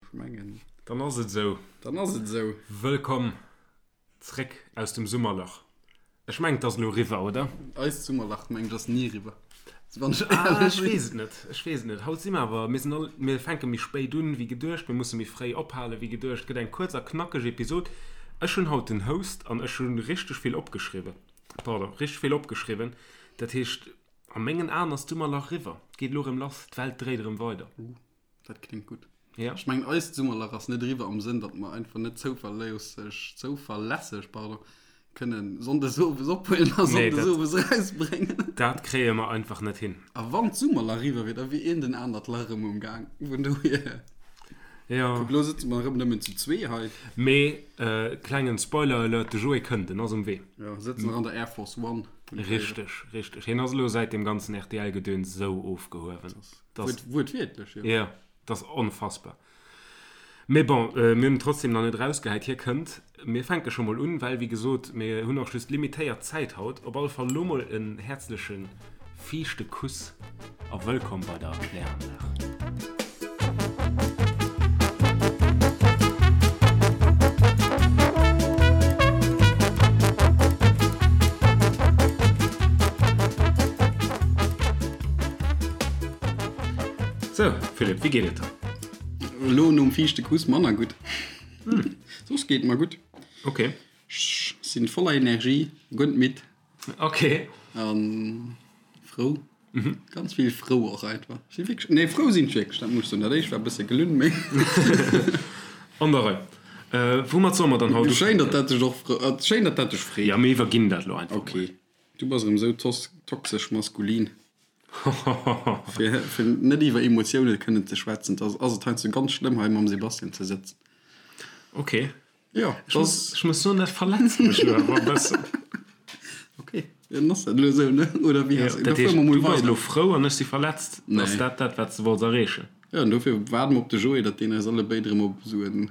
Ech mengen. Dann ass et esou. Dann ass et esou. Wëllkomm zréck aus dem Summerlach. Ech mengen, et ass elo eriwwer, oder? Eist Summerlach, mengen ech, ass ni eriwwer. Wann ech éierlech sinn. Ech weess et net. Ech weess et net. Haut si mer awer, mir sinn all, mir fänke méi spéit un wéi geduecht, mir musse méi fréi ophale wéi geduecht. Et gëtt eng kuerz a knackeg Episod. Ech hunn haut den Host an ech hu richteg vill opgeschriwwen. Pardon, richteg vill opgeschriwwen. Dat heescht, a mengen Aen ass d'Summerlach eriwwer. Et geet elo erëm lass. D'Welt dréit erëm weider. Dat kléngt gutt. Ja. Ech mengen eist Summerlach ass net eriwwer am Sënn, datt mer einfach net zouverléisseg, zouverlässeg, pardon, kënnen Sonndes owes ophuelen a Nee, Sonndes dat, owes erausbréngen. dat kréie mer einfach net hin. A wann d'Summerlach eriwwer wier, da wier een den anert Lach erëm um Gaang. Vun dohier. Ja. Kuck, elo sëtze mer erëm nëmmen zu zwee hei. Mee, klengen Spoiler-Alert, de Joé kënnt, en ass um Wee. Jo, sëtzen nach an der Air Force One. Richteg, richteg. Hien ass elo säit deem ganzen RTL-Gedöns esou ofgehuewen. Das, Wuertwiertlech, jo. Ja, dat ass onfassbar. Mee bon, mir hunn en trotzdem nach net erausgehäit. Hie kënnt. Mir fänke scho mol un, well, wéi gesot, mir hunn och just limitéiert Zäit haut. Op alle Fall elo mol en häerzleche fiichte Kuss a wëllkomm bei der Kläranlag. Sou, Philippe, wéi geet et der? Elo nom fiichte Kuss manner gutt. Soss geet et mer gutt. Ok. Ech sinn voller Energie, guer net midd. Ok. An frou. Ganz vill frou och einfach. Ech sinn wierklech, nee frou sinn ech wierklech, dat muss ech soen. Dat éischt war e bësse gelunn, mee. An der Rei. Woumat solle mer dann haut ufänken? Schéin, datt dat dech och frou, schéin, datt dat dech freet. Ja, mir iwwerginn dat elo einfach mol. Ok. Du bass erëm esou toxesch maskulin. Fir, fir net iwwer Emotioune kënnen ze schwätzen, da ass et heiansdo ganz schlëmm, hei mam Sebastian ze sëtzen. Ok. Jo, Ech muss, ech muss soen, dat verletzt mech elo awer e bëssen. Ok, jo, dann ass dat elo esou, ne? Oder wéi Jo, has, dat da fuere heescht, mer mol du bass weider. elo frou an ech si verletzt. Nee. Ass dat dat, wat s de wollts erreechen? Jo, an dofir waarde mer op de Joé, datt deen eis allebéid erëm op esou en.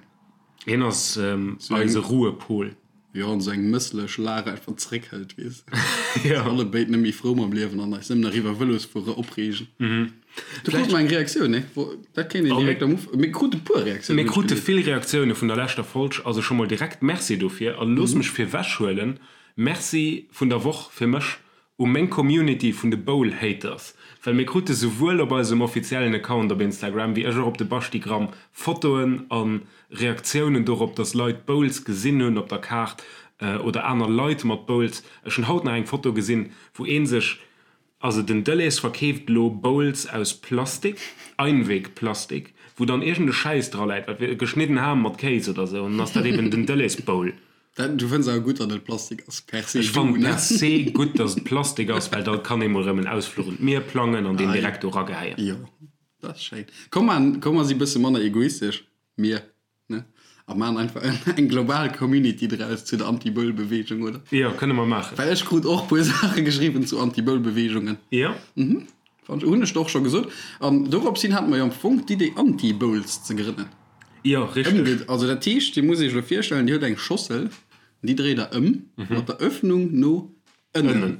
Hien ass eise Ruhepol. Jo, an esou eng mësslech Lag einfach zréckhëlt, weess de. Jo. Sinn allebéid net méi frou mam Liewen an eis nëmmen nach iwwer Vëlosfuere opreegen. Du krut mer eng Reaktioun, ne? Dat kéint een direkt am Uf-, mir krute puer Reaktiounen, Mir krute vill Reaktioune vun der leschter Folg, also scho mol direkt Merci dofir. A looss mech virwechhuelen, Merci vun der Woch fir mech U meng Community vun de Bowl Haters, well mir krute souwuel op eisem offiziellen Account op Instagram wéi ech och op de Baschtigramm Fotoen a Reaktiounen dorop, dass Leit Bowls gesinn hunn op der Kaart oder aner Leit mat Bowls. Ech hunn haut nach eng Foto gesinn, wou ee sech, also den Delhaize verkeeft elo Bowls aus Plastik, Einwegplastik, wou dann iergend e Schäiss dra läit, wat wier, geschnidden Ham mat Kéis oder sou, an dann ass dat eben den Delhaize Bowl. Dat, du fënns awer gutt, datt et Plastik ass, per se Ech du, fannen ne? per se gutt, datt et Plastik ass, well da kann ee mol erëm en Ausfluch un d'Mier plangen an deen direkt do ragehäien. Jo, dat ass schéin. Komm man, komm mer si bësse manner egoistesch, mir, ne? A man einfach eng global Community draus zu der Anti-Boule-Beweegung, oder? Jo, kënne mer maachen. Well ech krut och puer Saache geschriwwen zu Anti-Boule-Beweegungen. Jo. Mhm. Fand ech, hunn ech der och scho gesot. An dorops hin hate mer jo am Fong d'Idee Anti-Bowls ze grënnen. Jo, richteg. Also dat heescht, Dir musst Iech elo virstellen, Dir hutt eng Schossel, déi dréit Der ëm mat der Öffnung no ënnen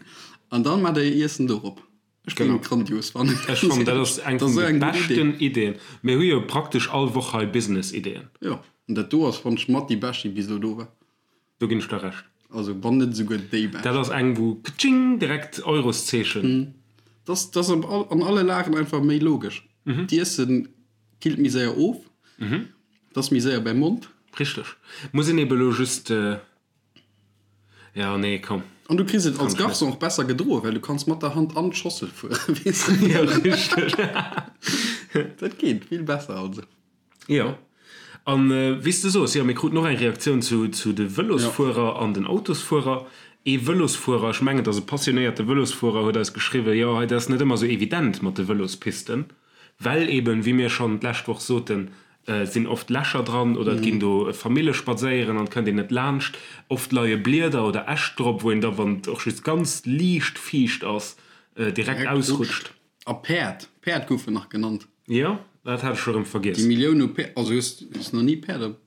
an dann maacht Der Är Iessen dorop. Ech géing et grandios fannen. Ech fannen, dat ass eng vun de beschten Ideen. Mir hu jo praktesch all Woch hei Business-Ideen. Jo, an dat do ass, fannen ech, mat déi bescht, déi bis elo do war. Do ginn ech der Recht. Also wann net esouguer déi bescht. Dat ass eng wou ktsching direkt Euroszeechen. Dat ass an alle Lagen einfach méi logesch. D'Iessen killt méi séier of, et ass méi séier beim Mond. Richteg. Muss een eben elo just, jo nee komm. An du kriss et als Garçon och besser gedroen, well du kanns mat der Hand an d'Schossel fueren, weess de. Jo richteg. Dat geet vill besser also. Jo, an wéi s de soos, jo, mir kruten och eng Reaktioun zu zu de Vëlosfuerer an den Autosfuerer. Ee Vëlosfuerer, ech mengen et ass e passionéierte Vëlosfuerer, huet eis geschriwwen, jo, hei, dat ass net ëmmer esou evident mat de Vëlospisten, well eben, wéi mir schonn d'lescht Woch soten, et sinn oft Lächer dran oder et ginn do Famille spadséieren an et kënnt een net laanscht. Oft leie Blieder oder Äscht drop, wou een da, wann et och just ganz liicht fiicht ass, direkt ausrutscht. A Päerd, Päerd goufen nach genannt. Jo, dat hat ech scho rëm vergiess. Déi Millioun u Päerd, also hues du nach ni Päerd op.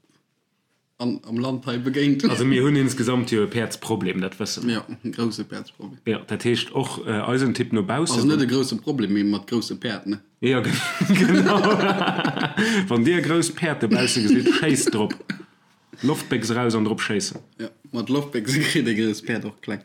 An am Land hei begéint. Also mir hunn insgesamt jo e Päerdsproblem, dat wësse mer. Jo, e grousse Päerdsproblem. Jo, dat heescht och eisen Tipp no baussen. Also net e grousse Problem, mee mat grousse Päerd, ne? Jo, genau. Wann Dir e grousst Päerd dobausse gesitt, schéisst drop. Loftbéchs eraus an drop schéissen. Jo, mat Loftbéchse kritt ee grousst Päerd och kleng.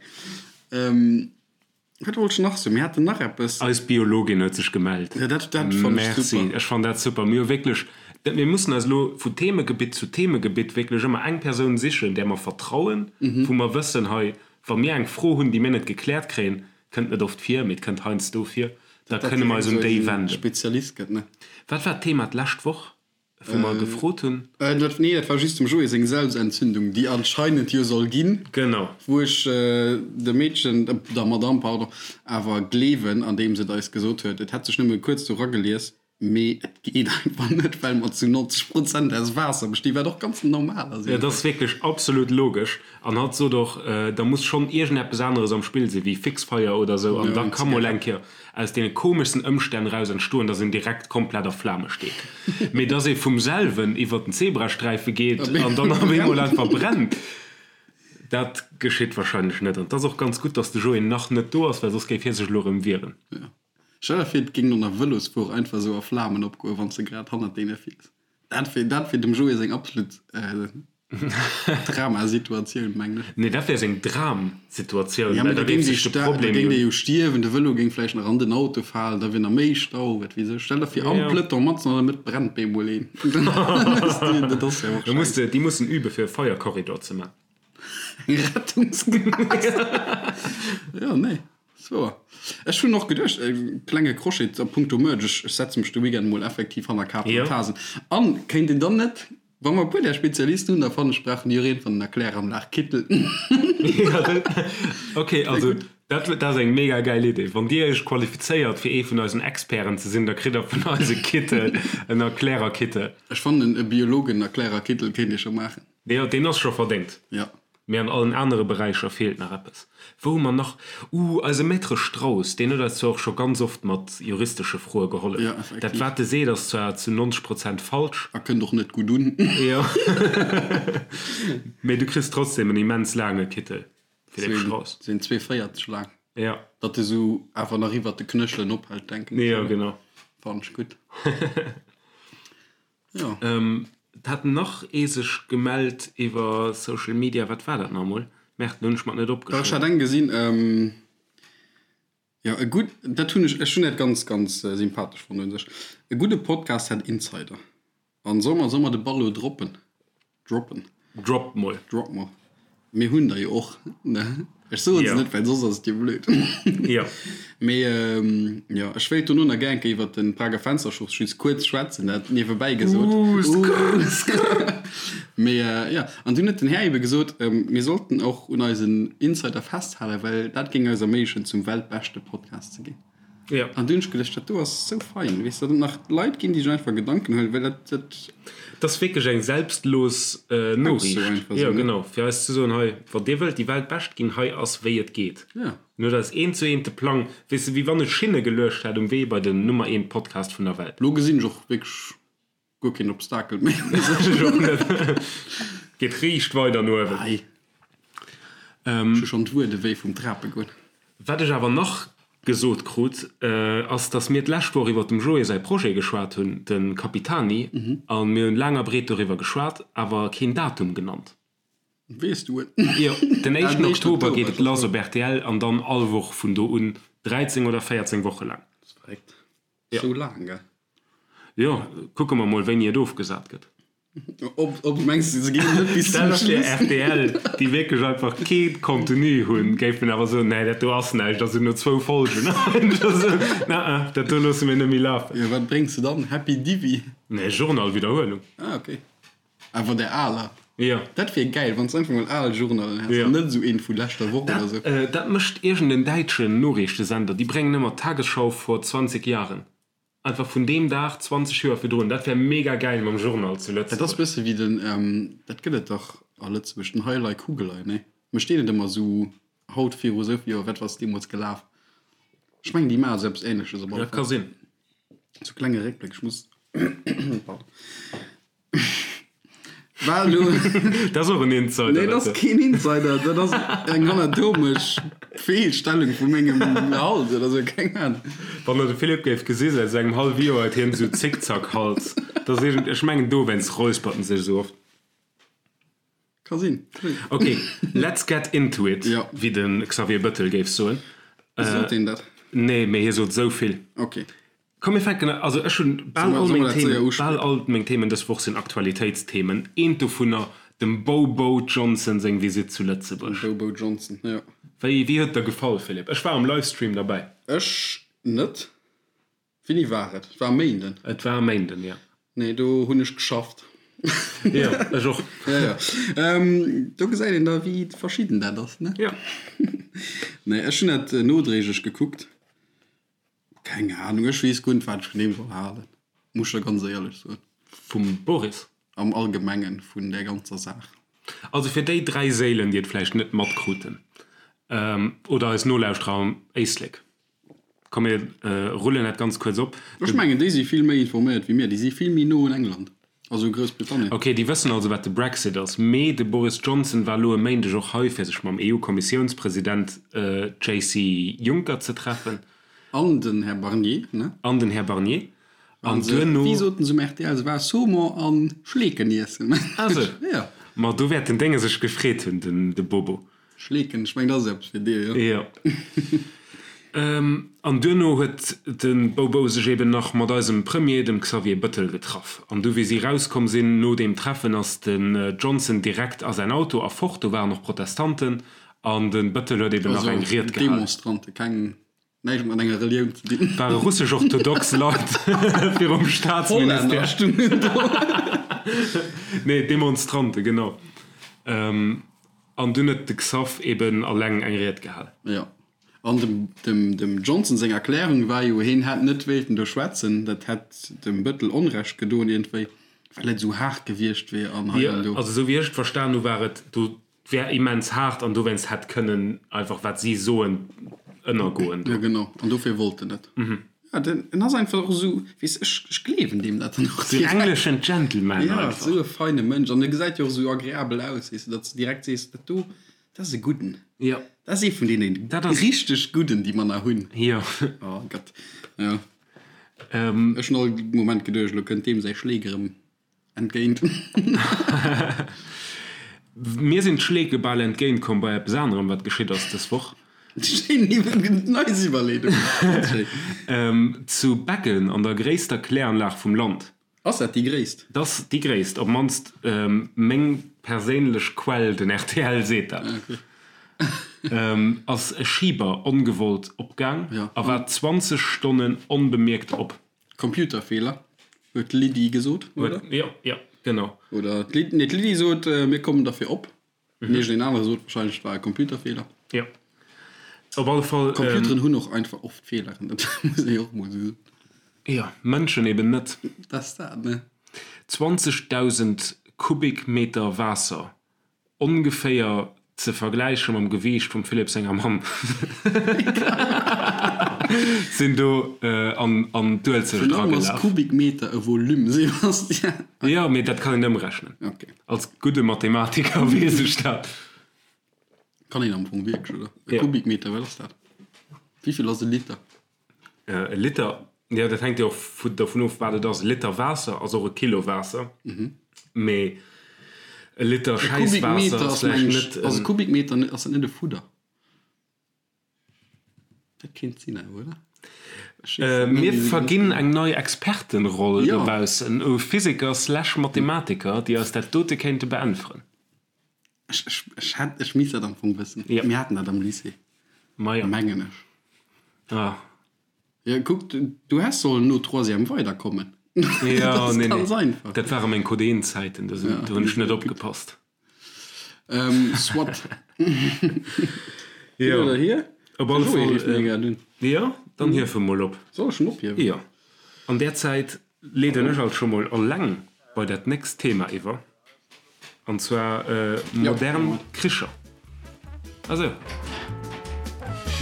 Wat wollt ech nach soen? Mir haten nach eppes. Eis Biologin huet sech gemellt. Ja, dat, dat fannt ech super. Merci, ech fannen dat super. Mir hu wierklech, dat, mir mussen eis elo vu Themegebitt zu Themegebitt wierklech ëmmer eng Persoun sichen, där mer vertrauen, wou mer wëssen, hei, wa mir eng Fro hunn, déi mir net gekläert kréien, kënnt net oft vir, mee et kënnt heiansdo vir, da kënne mer eis un déi wenden. Spezialist gëtt, ne? Wat war d'Thema d'lescht Woch? Wou mer gefrot hunn. Dat, nee, dat war just dem Joé seng Selbstentzündung, déi anscheinend jo soll ginn. Genau. Wou ech dem Meedchen, der Madame, pardon, awer gleewen, andeems et eis gesot huet, et hätt sech nëmme kuerz do ragelies, mee et geet einfach net, well mer zu 90 Prozent aus Waasser bestinn, wat och ganz normal ass. Dat ass wierklech absolut logesch. An hatt sot och, da muss schonn iergendeppes aneres am Spill sinn, wéi Fixfeier oder esou, an da ka mol eng Kéier aus deene komeschsten Ëmstänn eraus entstoen, dass een direkt komplett a Flame steet, mee dass ee vum selwen iwwert den Zebrasträife geet an dann op eemol einfach brennt, dat geschitt wahrscheinlech net. An et ass och ganz gutt, dass de Joé nach net do ass, well soss géif hie sech elo erëm wieren. Jo. Stell der vir, et géing no einer Vëlosfuer einfach esou a Flamen opgoen, wann s de grad hannert deene fiers. Dat wier, dat wier dem Joé seng absolut Dramasituatioun, mengen ech. Nee, dat wär seng Dramsituatioun, Ja, well mee da da géif géing sech dee de da Problem géing jo. dee jo stierwen, de Vëlo géing vläicht nach an den Auto falen, da wier nach méi Stau, wat weess ech. Stell der vir, am Ja. Peloton, matzen an der Mëtt brennt bemol een. Dat ass jo och Da muss schäiss. de, déi mussen übe fir e Feierkorridor ze man. Eng Rettungsgaass. Jo, nee. Sou, ech hunn och geduecht, e klenge Crochet a punkto Merch, ech setze mech de Weekend mol effektiv hanner Kafen an Tasen. An kéint een dann net, wa mer e puer där Spezialisten hunn, da fannen ech, brauchen déi och iergendwann en Erkläranlag-Kittel. Ok, also dat dat ass eng mega gäil Idee. Wann Dir Iech qualifizéiert fir ee vun eisen Experten ze sinn, da kritt Der vun eis e Kittel, en Erklärerkittel. Ech fannen, e Biologen-Erklärerkittel kéint ee scho maachen. Jo, deen ass scho verdéngt. Jo. Mee an allen anere Beräicher feelt nach eppes. Wou hu mer nach? Uh, eise Maître Strauss, deen huet eis zwar och scho ganz oft mat juristesche Froe gehollef. Jo, effektiv. Dat, wat e seet, ass zwar zu 90 Prozent falsch. A kënnt och net gutt un. Jo. Mee du kriss trotzdem en immens laange Kittel, Philippe Strauss. Sinn 2,40 laang. Jo. Datt e sou awer nach iwwert de Knéchelen ophält, denken ech. Jo, genau. Fannen ech gutt. Jo. Et hat nach ee sech gemellt iwwer Social Media. Wat war dat nach emol? Merde, lo hunn ech mer et net Ech hat opgeschriwwen. eng gesinn, jo e gutt, dat hunn ech, ech hunn dat ganz, ganz sympathesch fonnt un sech. E gudde Podcast hätt Insider. An soll mer, soll mer de Ball elo droppen? Droppen. Drop mol. Drop mol. Mir hunn der jo och, ne? Ech soen se net, well soss ass et jo blöd. Jo. Mee jo, ech wéilt dono nach gär eng Kéier iwwert den Prager Fensterschuss just kuerz schwätzen, dat niewebäi gesot. Uuh, skrr, skrr. Mee jo, an dunn huet den Här ebe gesot, mir sollten och un eisen Insider festhalen, well dat géing eis erméiglechen, zum weltbeschte Podcast ze ginn. Ja. An dunn hunn ech geduecht, dat do ass sou fein, weess de, datt et nach Leit ginn, déi sech einfach Gedanken huelen, well dat, dat. Dat ass wierklech eng selbstlos Noriicht. Einfach Jo, sou, ne? genau, fir eis ze soen, hei, wann Dir wëllt déi Weltbescht ginn, hei ass wéi et geet. Ja. En huet eis eent zu eent de Plang, weess de, wéi wann e Schinne geluecht hätt um Wee bei den Nummer eent Podcast vun der Welt. Lo gesinn ech och wierklech Guer keen Obstakel méi. Ech och net. Geet riicht weider no uewen. Ei. Ech hu schonn d'Wuede wéi vum Trape goen. Wat ech awer nach gesot krut, ass, dass mir d'lescht Woch iwwer dem Joé säi Projet geschwat hunn, de Capitani, a mir hunn laang a breet doriwwer geschwat, awer keen Datum genannt. Weess du et? Jo, den éischten Oktober geet et lass op rtl an dann all Woch vun do un, 13 oder 14 Woche laang. Dat ass verréckt. Sou laang, gell? Jo, kucke mer mol wéini et ofgesat gëtt. Ob, ob mengs du se ginn net bis zum Schluss? Stell der vir rtl, déi wierklech einfach kee Contenu hunn, géifen awer soen, nee dat do ass näischt, also no zwou Folgen na dat do loosse mir net méi lafen. Jo, wat bréngs de dann? Happy Divi? Nee, Journal-Widderhuelung. Ah, okay. Awer der aler. Jo. Dat wier gäil, wann s einfach mol al Journalen häss, Jo. an net esou een vu leschter Woch oder esou. Dat, dat mécht iergend en däitschen Noriichtesender, déi bréngen ëmmer d'Tagesschau vor 20 Jahren. Einfach vun deem Dag 20 Joer virdrun. Dat wär mega gäil mam Journal zu Dat ass Lëtzebuerg. bësse wéi den, dat gëtt et dach a Lëtzebuerg, den Heilei Kugelei, nee? Mécht deen net ëmmer esou haut viru esou vill Joer, wat ass deemools gelaf? Ech mengen déi maache sou eppes Ähnleches op alle Dat ka Fall. sinn. Sou klenge Réckbléck, ech muss, pardon. War elo. Dat ass och en Insider. Nee, dat ass keen Insider. Dat ass eng anatomesch Feelstellung vu mengem Hals oder sou, keng Ahnung. Wann der de Philippe géif gesi säit sou engem hallwe Joer huet hien sou Zickzack-Hals. Dat ass iergend, ech mengen dowéinst räuspert en sech esou oft. Ka sinn. Ok, let's get into it, Ja. wéi de Xavier Bëttel géif soen. Sot deen dat? Nee, mee hie sot esou vill. Ok. Komm mir fänken, also ech hunn bal all meng Themen, bal all meng Themen dës Woch sinn Aktualitéitsthemen. Eent dovunner, dem Bobo Johnson seng Visitt zu Lëtzebuerg. Dem Bobo Johnson, jo. Wéi, wéi huet et der gefall, Philippe? Ech war am Livestream derbäi. Ech net. Wéini war et? Et war e Méinden. Et war e Méinden, jo. Nee, do hunn ech geschafft. Jo, ech och. Jo, jo. Do gesäit een da, wéi verschidden dat ass, ne? Jo. Nee, ech hunn dat nodréiglech gekuckt. Keng Ahnung, ech weess guer net wat ech vun deem soll halen, muss ech der ganz éierlech soen. Vum Boris? Am Allgemengen vun där ganzer Saach. Also fir déi 3 Séilen déi et vläicht net matkruten, oder eis Nolauschterer am Éislek, komm mir rullen dat ganz kuerz op. Ech mengen déi si vill méi informéiert wéi mir, déi si vill méi no un England, also u Groussbritannien. Ok, déi wëssen also wat de Brexit ass, mee de Boris Johnson war elo e Méindeg och hei fir sech mam EU-Kommissiounspresident JC Juncker ze treffen. An den Här Barnier, ne? An den Här Barnier. An duerno. Wéi soten se um rtl, se war Saumon a Schleeken iessen. Ah sou. Ja. Ma do wäert den Dénge sech gefreet hunn, den de Bobo. Schleeken, ech mengen, dat ass eppes fir dir, jo? Jo. An duerno huet de Bobo sech eben nach mat eisem Premier, dem Xavier Bëttel, getraff. An du wéi si rauskomm sinn no deem Treffen, ass den Johnson direkt a säin Auto a fort. Do waren och Protestanten. An de Bëttel huet eben nach eng Ried gehalen. Demonstrante, keng, näischt mat enger Relioun ze dinn. Ware russesch-orthodox Leit virum Staatsministère. Hollänner stungen do. Nee, Demonstrante, genau. An dunn huet de Xav eben alleng eng Ried gehal. Jo. An dem, dem, dem Johnson seng Erklärung war jo, heen hätt net wéilten do schwätzen, dat hätt dem Bëttel Onrecht gedoen iergendwéi, well et esou haart gewiescht wier an hei an do. Also esou wéi ech et verstan hu war et do 't wär immens haart an dowéinst hätt kënnen einfach wat si soen ënnergoen do. Jo genau, an dofir wollt en net. Ja, den en ass einfach och esou, weess ech, ech gleewen deem dat dann och direkt. Deen engleschen Gentleman einfach. Ja, esou e feine Mënsch an e gesäit jo och esou agreabel aus, weess de, datt s de direkt sees, dat do, dat ass e Gudden. Jo. Dat ass ee vun deene richteg Gudden, déi mer nach hunn. Jo. Oh Gott, jo. Ech hunn all Moment geduecht, elo kënnt deem säi Schleek erëm. Entgéint. Mir sinn d'Schleeke bal entgéint komm bei eppes anerem, wat geschitt ass dës Woch. Schéin nice Iwwerleedung. Ganz schéin. Zu Beggen an der gréisster Kläranlag vum Land. Ass dat déi gréisst? Dat ass déi gréisst, op mannst meng perséinlech Quell, den rtl seet dat. Ass e Schiber ongewollt opgaang a war 20 Stonnen onbemierkt op. Computerfeeler, huet d'Lydie gesot, oder? Jo, jo, genau. Oder d'Lydie, nee, d'Lydie sot, mir kommen derfir op. An iergendeen anere sot wahrscheinlech, et war e Computerfeeler. Jo. Op alle Fall. Computeren hunn och einfach oft Feeleren, dat muss ee jo och mol esou soen. Jo, Mënschen eben net. Dat ass dat, ne? 20.000 Kubikmeter Waasser Ongeféier ze vergläiche mam Gewiicht vum Philippe senger Mamm sinn do an d'Uelzecht Virun allem ass eragelaf. Kubikmeter e Volume, Sebastian. Jo, mee dat kann een ëmrechnen. Ok. Als gudde Mathematiker weess ech dat. Kann een am Fong wierklech, oder? E Jo. Kubikmeter, wat ass dat? Wéivill ass e Liter? E Liter, jo dat hänkt jo och dovun of wat et ass. E Liter Waasser ass och e Kilo Waasser, mee e Liter Schäisswaasser ass vläicht net en. Ass e Kubikmeter net, ass dat net e Fudder? Dat kéint sinn awer, oder? Mir verginn eng nei Expertenroll dobaussen u Physiker slash Mathematiker, déi eis dat dote kéinte beäntweren. Ech, ech, ech hätt, ech misst dat am Fong wëssen. Ja. Mir haten dat am Lycée. Ma jo. Mengen ech. Ah. Ja, kuck, du, du häss sollen no Troisième weiderkommen. Ja, Dat ass nee, ganz nee. einfach. Dat ware meng Codein-Zäiten, do sinn, do hunn ech net opgepasst. Ähm, soit. Hin Jo. oder hier? Op alle De Joé Fall, rifft mir äh, grad un. jo, dann hief e mol op. Soll ech en ophiewen? Jo. An där Zäit leeden ech alt scho mol alleng bei dat nächst Thema iwwer, an zwar modern Kricher. Ah sou,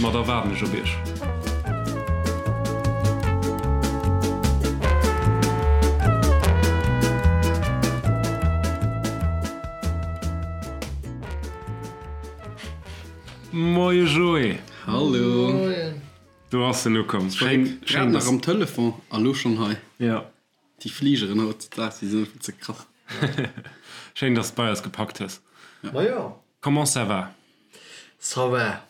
ma da waarden ech op iech. Moie Joé! Hallo! Moien! Do ass en ukomm. Schéin, Grad nach am Telefon a lo schonn hei. Jo. Déi Fligeren hautdesdaags, déi sinn einfach ze krass. Schéin, dass de bei eis gepackt hues. Majo. Comment ça va? Ça va,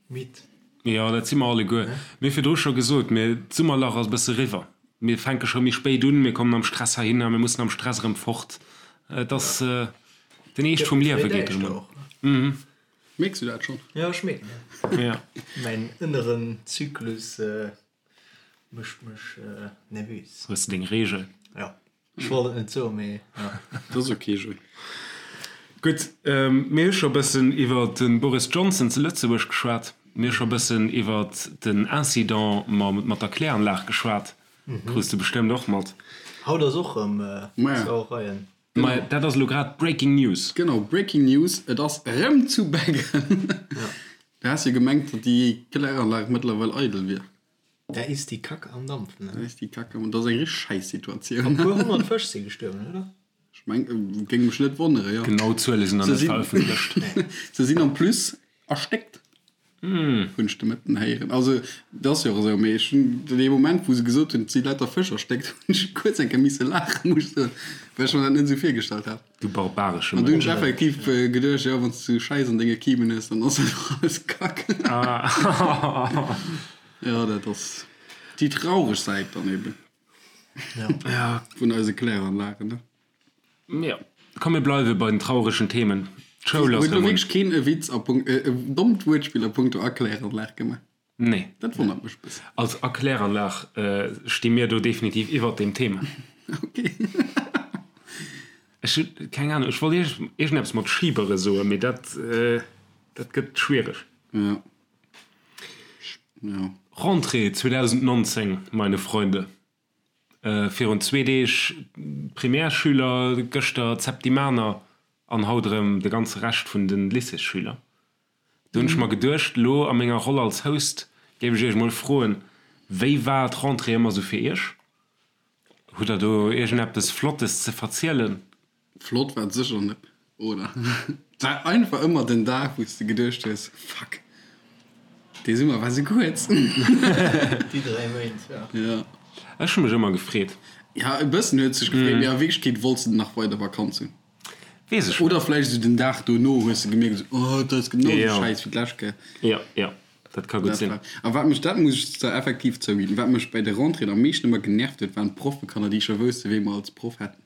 midd. Jo, dat si mer alleguer. Mir hu virdru scho gesot, mir, d'Summerlach ass e bësse riwwer. Mir fänke scho méi spéit un, mir kommen am Stress heihinner, mir mussen am Stress erëm fort. Et ass den Eescht vum Liewe geet erëm un. Mierks du dat schonn? Jo, ech mierken dat. Ja. Mäin ënneren Zyklus mécht mech nervös. Hues de deng Reegel? Jo. Ech wollt et net soen, mee jo. Dat ass ok, Joé. Gutt, mir hu scho e bëssen iwwer de Boris Johnson zu Lëtzebuerg geschwat. Mir hu scho e bëssen iwwer den Incident mat der Kläranlag geschwat. Krus de bestëmmt och mat. Haut ass och erëm Sauereien. Maja, dat ass elo grad Breaking News. Genau, Breaking News, et ass erëm zu Beggen. Du has jo gemengt, datt déi Kläranlag mëttlerweil eidel wier. Da ist die Kacke am Dampfen, ne? Da ist die Kacke am, dat ass eng richteg Schäissituatioun. An e puer 100 Fësch si gestuerwen, oder? Ech meng, géing mech net wonnere, jo. Genau Zuele sinn nach net verëffentlecht. Se sinn en plus erstéckt, hunn ech de Mëtten héieren. Also, dat ass jo och esou, mee ech hunn dee Moment, wou se gesot hunn, et si lauter Fësch erstéckt, hunn ech kuerz eng Kéier misse laachen, muss ech soen, well ech mer dat net esou virgestallt hat. Du barbaresche An du hunn ech effektiv geduecht, jo, wann s du Schäiss an denge Kimen hues, dann ass dat och alles Kack. Jo, dat ass déi traureg Säit dann eben vun eise Kläranlagen, ne? Jo, komm mir bleiwe bei den trauregen Themen. D'Schoul ass Huet elo erëm un. wierklech keen e Witz a Punkt, e dommt Wuertspill a punkto Erkläranlag gemaach? Nee. Dat wonnert mech e bëssen. Als Erkläranlag sti mir do definitiv iwwert deem Thema. Ok. Ech hunn keng Ahnung, ech wollt iergendeppes mat Schibere soen, mee dat, dat gëtt schwiereg. Jo. Jo. Rentrée 2019, meine Freunde. Virun zwee Deeg d'Primärsschüler, gëschter d'Septimaner an haut erëm de ganze Rescht vun de Lycéesschüler. Do hunn ech mer geduecht, elo a menger Roll als Host géif ech iech mol froen, wéi war d'Rentrée ëmmer sou fir iech? Hutt der do iergendeppes Flottes ze verzielen? Flott war et sécher net, oder? Et war einfach ëmmer den Dag, wou s de geduecht hues, Fuck, dee Summer war sou kuerz. Déi 3 Méint, jo. Jo. Ech hu mech ëmmer gefreet. Ja, e bëssen huet sech gefreet, mee a Wierklechkeet wollts de nach weider Vakanz hunn. Weess ech net. Oder vläicht esou den Dag dono hues de gemierkt, esou, oh, dat ass genau esou schäiss wéi d'lescht Kéier. Jo, jo, dat ka gutt sinn. A wat mech, dat muss ech zwar effektiv zouginn, wat mech bäi de Rentréeën am meeschten ëmmer genervt huet, waren d'Proffekanner, déi scho wouste wee mer als Proff hätten.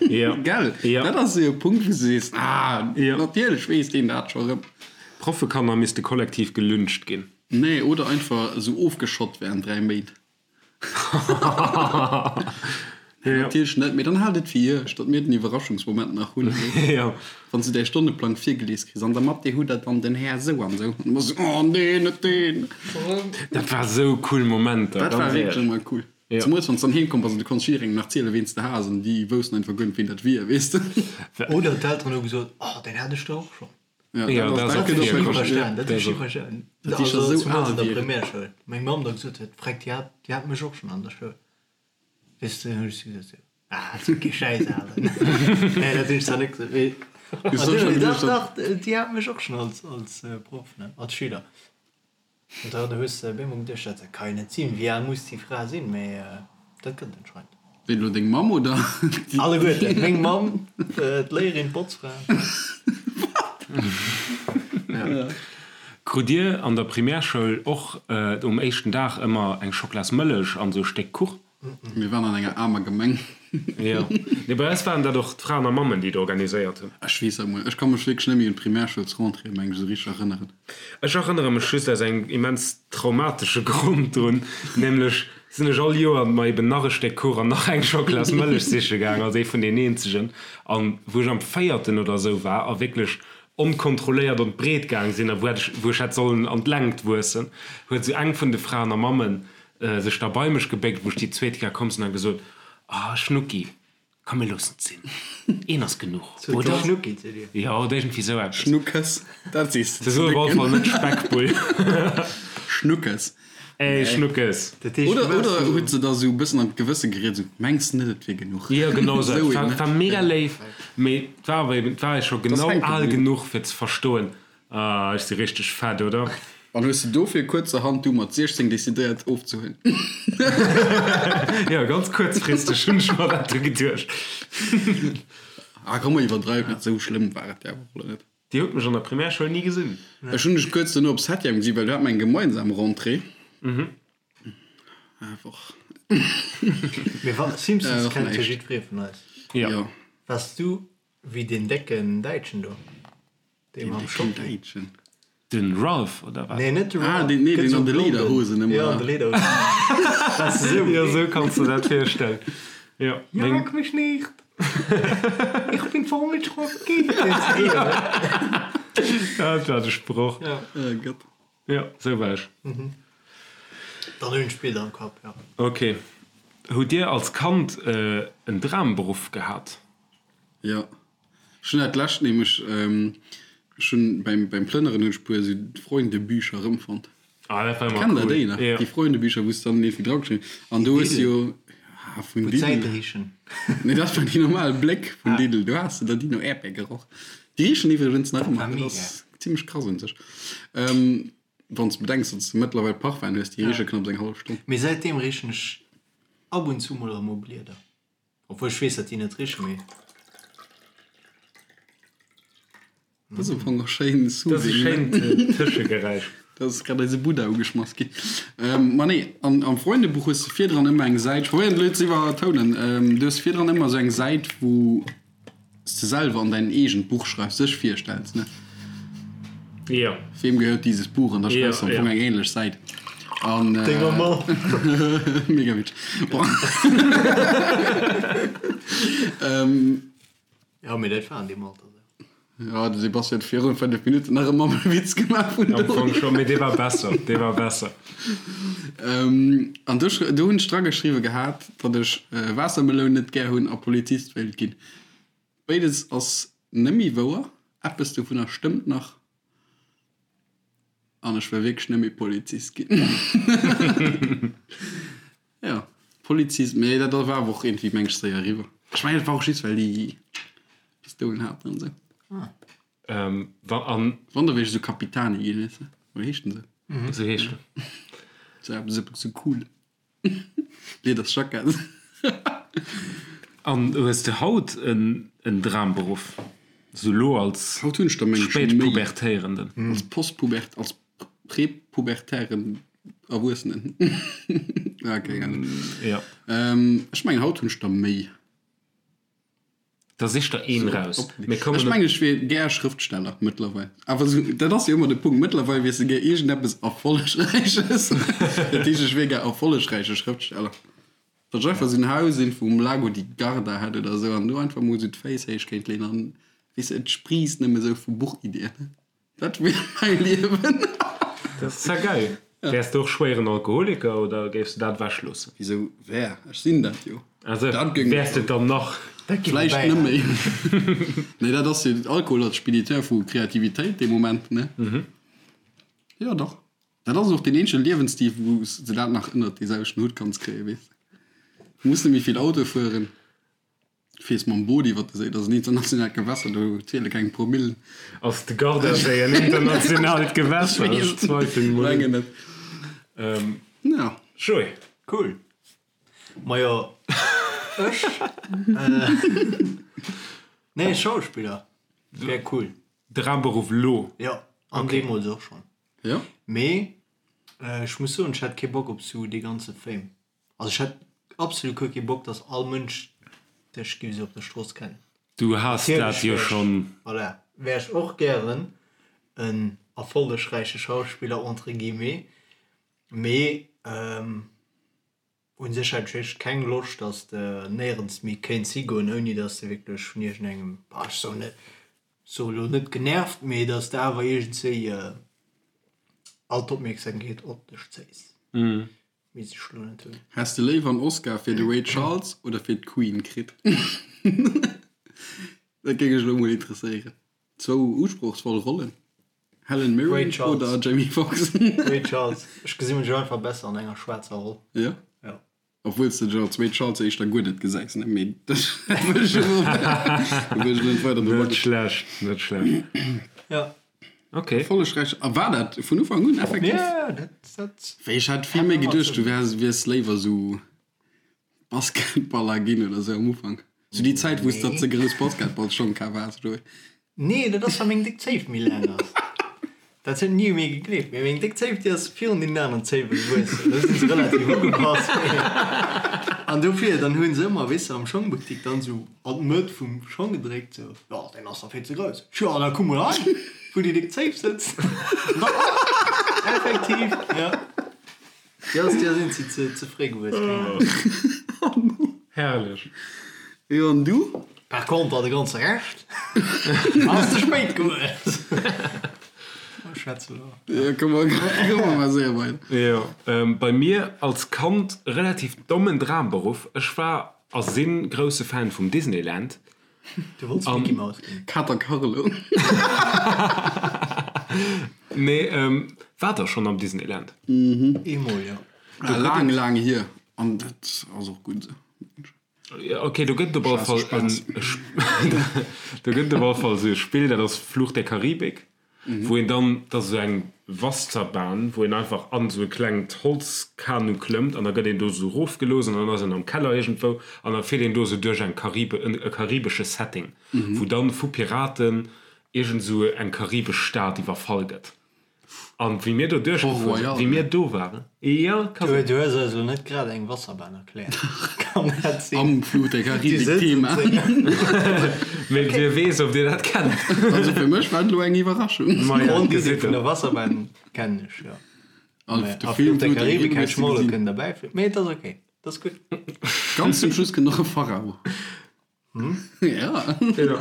Ja. Gell? Ja. Dat ass esou e Punkt, wou s du sees, ah, Ja. natierlech weess deen dat scho rëm. Proffekanner misste kollektiv gelyncht ginn. Nee, oder einfach esou ofgeschott während 3 Méint. Nee, natierlech net, mee dann haalt et fir iech, datt mir den Iwwerraschungsmoment nach hunn. Ja. Wann s du däi Stonneplang virgelies kriss, an der Mathé hutt der dann den Här esou an esou. An du bass esou, oh nee, net deen. Dat war esou cool Momenter, Dat war ganz wierklech éierlech. ëmmer cool. Ja. Zemools wann s dann heem komm bass an du konns jidderengem nach zielen, ween s de has an déi woussten einfach guer net, ween dat wier, weess de. Oder d'Elteren hu gesot, Oh, deen hat ech der och schonn. Ja, Ja, dat dat ass, ass dat och gëtt och virkomm. wierklech, ja. Verstanen, dat Dat hu ech ass och. verstanen. Dat déi scho Also sou zemools al an der wieren. Primärschoul. Meng Mamm da gesot huet, Freck, déi hat, déi hat mech och schonn an der Schoul. Weess de, hunn ech si gesot, Ah, dat ass kee Schäiss, awer. Nee, dat hunn ech zwar net gesot, mee. Du soss schon Dach, geduecht, dach, déi hat mech och schonn als, als Proff, ne, als Schüler. An da hues de op eemol geduecht, dat ka jo net sinn, wéi al muss déi Fra sinn? Mee dat gëtt et anscheinend. Ween elo, deng Mamm oder déi? Alleguerten, meng Mamm, d'Léierin, d'Botzfra. Wat? Ja. Krut dir an der Primärschoul och um éischten Dag ëmmer eng Schoklasmëllech an esou e Stéck Kuch? Mir waren an enger aarmer Gemeng. Jo. Nee, bei eis waren dat och d'Fraen a Mammen, déi et organiséiert hunn. Ech weess dat mol. Ech ka mech wierklech net méi un d'Primärschoulsrentrée, meng ech, esou richteg erënneren. Ech erënnere mech just aus engem immens traumatesche Grond drun, nämlech sinn ech all Joer mer eben nach e Stéck Kuch an nach eng Schoklasmëllech siche gaang, als ee vun den eenzegen. An wou ech am véierten oder esou war a wierklech onkontrolléiert an d'Breet gaang sinn a wou hätt ech, wou ech hätt sollen an d'Längt wuessen, huet esou eng vun de Fraen a Mammen sech da bei mech gebéckt, wou ech déi zweet Kéier komm sinn, a gesot, Ah, Schnucki, komm mir loossen et sinn, een ass genuch, oder? Schnucki zu dir? Jo, oder iergendwéi esou eppes. Schnuckes, dat sees de Se ze sot op alle Décken. Fall net Speckbull. Schnuckes. Ey, Schnuckes. Dat heescht, Oder, du waars oder sou. huet se da sou e bëssen an d'Gewësse geriet, sou, Mengs de net, et wier genuch? Jo, genau esou Esou eppes. een, War, ne? war mega léif, mee et war awer eben, et war ech scho Et ass genau hänke al bliwwen. genuch, fir ze verstoen. Ah, ech si richteg fett, oder? An hues de dofir kuerzerhand du mat 16 decidéiert ofzehuelen? Jo, ganz kuerzfristeg hunn ech mer dat du geduecht. Ah komm, mer iwwerdreiwen net, esou schlëmm war et jo awer och elo net. Dir hutt mech an der Primärschoul ni gesinn. Ech hunn dech kuerz dono op Septième gesi well do hat mer eng gemeinsam Rentrée. Einfach. Mee wa Simpsons Och kennt jo näischt. jiddweree vun eis. Jo. Waars du wéi deen décken Däitschen do? Dee mam Schocki. Däitschen. Den Ralph oder wat? Nee, net de Ralph. Ah, deen, nee, Gëtt deen sou an de blonden. Lederhosen ëmmer. Ja, an de Lederhosen. Waars de sou? Jo, sou kanns de dat virstellen. Jo, meng. Jag mich nicht! Ich bin voll mit Schocki! Ja, dat war de Sproch. Ja. Oh Gott. Jo, sou war ech. Dann hunn ech Bilder am Kapp, ja. Ok. Hutt Dir als Kand en Dramberuff gehat? Jo. Ech hunn dat lescht nämlech, ech hunn beim beim Plënneren hunn ech puer esou Freundebücher erëmfonnt. Ah, dat war ëmmer Kennt der cool. déi nach? Jo. Déi Freundebücher, wou s de dann iergendwéi dra geschriwwen an do hues de jo, ah, vun Wou Lidl. d'Säite richen. Nee, dat waren déi normal Bléck vun Lidl, do has de der déi no Äerdbeer geroch. Déi richen iwwregens nach ëmmer, War dat mega. ass zimmlech krass un sech. Wann s de bedenks, datt s de mëttlerweil Parfum hues, déi riche knapps eng hallef Stonn. Mee säitdeem richen ech ab und zu mol erëm u Blieder. Obwuel ech weess dat déi net richen, mee. Dat ass am Fong och schéin Dat ass e soothing, ne? schéint Tëschegeräisch. Dat ass grad eise Buddha ugeschmass ginn. Ma nee, an am Freundebuch hues de virdran ëmmer eng Säit, ech probéieren et elo ze iwwertounen, du hues virdran ëmmer esou eng Säit, wou s de selwer an däin eegent Buch schreifs, dech virstells, ne? Jo. Wem gehört dieses Buch? An da schreifs de am Jo, Fong jo. eng ähnlech Säit. An, Denger Mamm. Mega witzeg. Bon. Jo, mee dat war an deem Alter esou. Ja, de Sebastian huet virun 5 Minutten nach e Mammewitz gemaach vun Am Fong do. schon, mee dee war besser, dee war besser. An do, do hunn ech drageschriwwe gehat, datt ech Waassermeloun net gär hunn a Polizist wéilt ginn. Béides ass nëmmi wouer, eppes dovunner stëmmt nach an ech wëll wierklech nëmmi Polizist ginn. Jo, Polizist, mee dat war awer och iergendwéi meng ech séier eriwwer. Ech mengen et war och just well déi Pistoulen haten an esou. Ähm, wa, an. Wann da wier ech esou Capitani ginn, weess de, oder heescht den esou? Esou heescht en. Sou eppes esou cool. Liedersjackett. An hues de haut en en Dramberuff? Sou lo als Haut hunn ech der meng ech méi. Spätpubertéierenden? Als Postpubert, als Präpubertären Erwuessenen. Ah, keng Ahnung. Ja. Ähm, ech mengen haut hunn ech der méi. Da sich der een raus. Op, Mir kommen ech mengen ech wier gär Schrëftsteller mëttlerweil. Awer sou, dat ass jo ëmmer de Punkt. Mëttlerweil wiers de gär iergendeppes Erfollegräiches. Dat heescht, ech wier gär erfollegräiche Schrëftsteller. Datt ech einfach sou en Haus irgendwou um Lago di Garda hätt oder sou an do einfach mol sou d'Féiss héich kéint leeën an, weess de, et spriisst nëmme sou vu Buchiddien. Dat wier mäi Liewen. Dat ass ja geil. Wäers de och schwéieren Alkoholiker oder géifs de dat ewech loossen? Wisou wär? Ech sinn dat jo. Also Dat géing wäers de dann nach? Dat géif Vläicht bäi net méi. Nee, dat ass jo Alkohol als Spediteur vu Kreativitéit dee Moment, ne? Jo, dach. Dat ass och deen eenzege Liewensstil, wou s de dat nach ënnert dee selwechten Hutt kanns kréien, weess de. Du muss net méi vill Auto fueren. Fiers mam Boot iwwer de Séi, dat ass en internationaalt Gewässer, do ziele keng Promillen. Ass de Gardasee en internationaalt Gewässer? Ech zweifelen mol un. Mengen net. Ja. Joé. Cool. Majo, ech? Nee, Schauspiller wär cool. Dramberuff lo? Jo, an deemools och schonn. Jo. Mee ech muss soen, ech hätt kee Bock op sou dee ganze Fame. Also ech hätt absolut guer kee Bock, dass all Mënsch dech géif esou op der Strooss kennen. Du has dat jo schonn. Voilà, wär ech och gären en erfollegräiche Schauspiller entre guillemets, mee un sech hätt ech wierklech keng Loscht, dass de néierens méi kéints higoen, ouni dass de wierklech vun iergendengem, bah ech soen net, soe lo net genervt, mee dass de awer iergendswéi all d'Opmierksamkeet op dech zéis. Weess ech lo net hunn. Häss de léiwer en Oscar fir de Ray Charles oder fir d'Queen kritt? Dat géing mech elo mol interesséieren. Zwou usprochsvoll Rollen, Helen Ray Mirren Charles. oder Jamie Foxx? Ray Charles. Ech gesi mech einfach besser an enger schwaarzer Roll. Jo? Jo. Obwuel s de dech als Ray Charles éischter guer net gesäis, ne? Mee dat wëll ech elo wëll ech elo net weider drop Net agoen. schlecht, net schlecht. Jo. Ok. Erfollegräich. A war dat vun Ufank un effektiv? Ja, dat, dat. Well ech hat vill méi geduecht, du wäers, wiers léiwer sou Basketballer ginn oder sou am Ufank. Sou déi Zäit, wou s de ze grouss Basketballschong kaf has, oder wéi? Nee, dat ass, well meng déck Zéif méi laang ass. Dat huet ni u mir gegleeft, mee meng déck Zéif, déi ass virun deenen aneren Zéiwe gewuessen. Do si se relativ ugepasst. An dofir, dann hu se ëmmer, weess de, am Schongbuttik dann sou an d'Mëtt vum Schong gedréckt, sou, Jo, deen ass der vill ze grouss. Jo, da kuck mol hei, wou déi déck Zéif sëtzt. Effektiv, jo. Jo, ass dir sinn si ze ze fréi gewuess, keng Ahnung. Herrlech. Jo, an du? Par contre de ganze Rescht ass ze spéit gewuess. Schwätz elo. Jo, komm mer, komm mer mol séier weider. Jo, bei mir als Kand relativ dommen Dramberuff. Ech war a sinn grousse Fan vum Disneyland. Du wollts Mickey Mouse ginn? Kater Carlo. Nee, waart der schonn am Disneyland? Eemol, jo. Laang, laang hier. An dat ass och gutt esou. Ok, do gëtt et op alle Fall en, do gëtt et op alle Fall esou e Spill, dat ass Fluch der Karibik. Wou een dann, dat ass esou eng Wasserbahn, wou een einfach an esou e klengt Holzkanu klëmmt an da gëtt een do esou erofgelooss an dann ass een am Keller iergendwou an da fiert een do esou duerch eng Karibe, e karibesche Setting, wou dann vu Piraten iergend esou eng karibesch Stad iwwerfall gëtt. An wéi mir do duerchgefuer sinn, wéi mir do waren, jo, ka sinn. Du hues eis elo net grad eng Wasserbahn erkläert, kann dat sinn? Am Fluch der Karibik Thema. Mee wie weess, ob dir dat kennt. Also fir mech war et elo eng Iwwerraschung. D'Grondidee vun der Wasserbahn kennen ech, jo. A Fluch der Karibik hätt ech mer och elo kënnen derbäifügen. Mee et ass ok, et ass gutt. Ganz zum Schluss kënnt och e Pharao. Ja. Ja.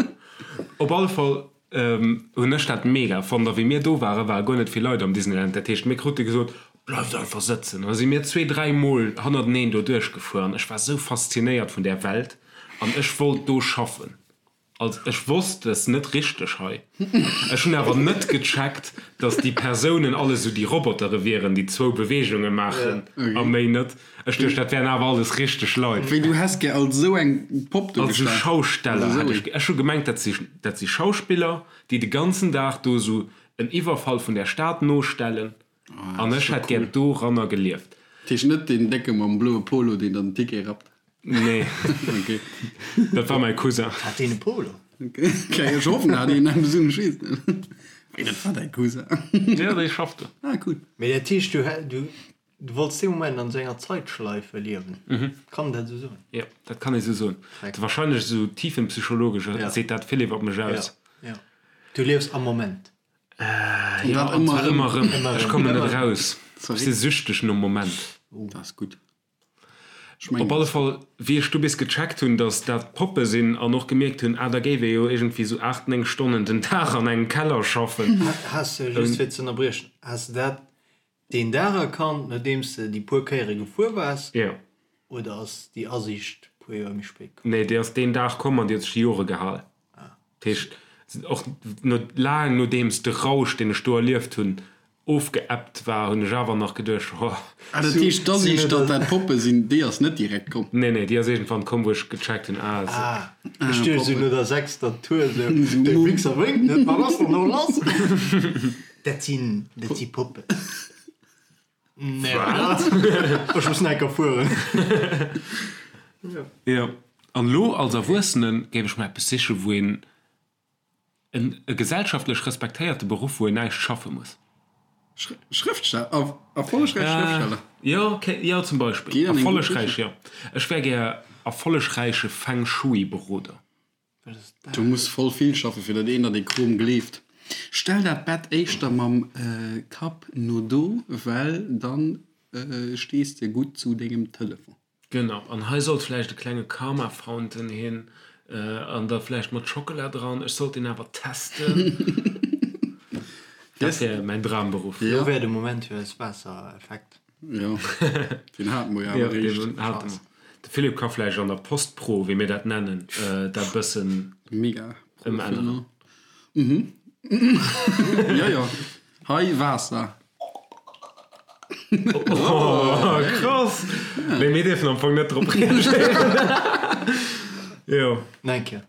Op alle Fall hunn ech dat mega fonnt. A wéi mir do waren, ware guer net vill Leit am Disneyland. Dat heescht, mir krute gesot, Bleift einfach sëtzen. An da si mir zwee, dräi Mol hannerteneen do duerchgefuer. An ech war sou faszinéiert vun där Welt an ech wollt do schaffen. Also ech wosst, dat ass net richteg hei. Ech hunn awer net gecheckt, dass déi Persounen all esou déi Robotere wieren, déi zwou Beweegunge maachen a méi net. Ech duecht, dat wären awer alles richteg Leit. Wéi, du häss gär als esou eng Popp do Als esou gestan? Schausteller hätt ech. Ech hu gemengt, dat si, dat si Schauspiller, déi de ganzen Dag do esou en Iwwerfall vun der Stad nostellen. An ech hätt gär doranner gelieft. Dat heescht net deen Décke mam bloe Polo, deen dann den Ticket rappt? Nee. Ok. Dat war mäi Cousin. Hat deen e Polo? Ok, ech hoffen, en hat een, eppes un, ech weess et net. Wéi, dat war däi Cousin? Jo, dee schafft do. Ah, cool. Mee dat heescht, du, du, Du wollts dee Moment an esou enger Zeitschleife liewen, kann een dat esou soen? Jo, dat kann ee sou soen. Wahrscheinlech esou tiefenpsychologesch seet dat vill iwwer mech aus. Jo, jo. Du liefs am Moment. Jo, an zwar ëmmer erëm. Ech kommen net eraus. Ech si süchteg nom Moment. Dat ass gutt. Op alle Fall, wéi ech du bis gecheckt hunn, datt dat Poppe sinn an och gemierkt hunn, ah, da géif ee jo iergendwéi sou 8, 9 Stonnen den Dag an engem Keller schaffen. Has de, just fir ze ënnerbriechen, has de dat Deen Dag erkannt, nodeems de déi puer Kéiere gefuer waars? Jo. Oder ass déi Asiicht puer Joer méi spéit komm? Nee, déi ass deen Dag komm an déi huet sech déi Jore gehal. Dat heescht, och no, laang nodeems de Rausch, deen ech do erlieft hunn, ofgeebbt war, hunn ech awer nach geduecht, ho. Ah, dat heescht, d'Asiicht, datt dat Poppe sinn, déi ass net direkt komm? Nee, nee, déi ass iergendwann komm, wou ech gecheckt hunn, ah, se. Ah, ech duecht esou no der sechster Tour esou, dee Wichser wénkt net, wat ass dann elo lass? Dat sinn, dat si Poppen. Nee, Wat? Ech muss nach eng Kéier fueren. Jo, an elo als Erwuessene géif ech mer eppes sichen, wou een en e gesellschaftlech respektéierte Beruff, wou een näischt schaffe muss. Schrëftsteller, erfollegräich Schrëftsteller. Jo, okay, jo, zum Beispill. Erfollegräich, jo. Ech wär gär erfollegräiche Feng Shui-Beroder. Du muss voll vill schaffen fir dat een der dee Krom gleeft. Stell dat Bett éischter mam Kapp no do, well dann stees de gutt zu dengem Telefon. Genau, an hei sollt vläicht e klenge Karma Fountain hin, an da vläicht mat Schockela dran. Ech sollt deen awer testen. Dat wär mäin Dramberuff. Lo wär de Moment fir eis Waassereffekt. Jo, deen hate mer jo awer eréischt. Hate mer. De Philippe ka vläicht an der Post-Pro, wéi mir dat nennen, dat bëssen Mega ëmänneren. Mhm. Jo, jo. Hei, Waasser. Oh, krass! Mee mir dierfen am Fong net drop reagéieren. Jo. Nach eng Kéier.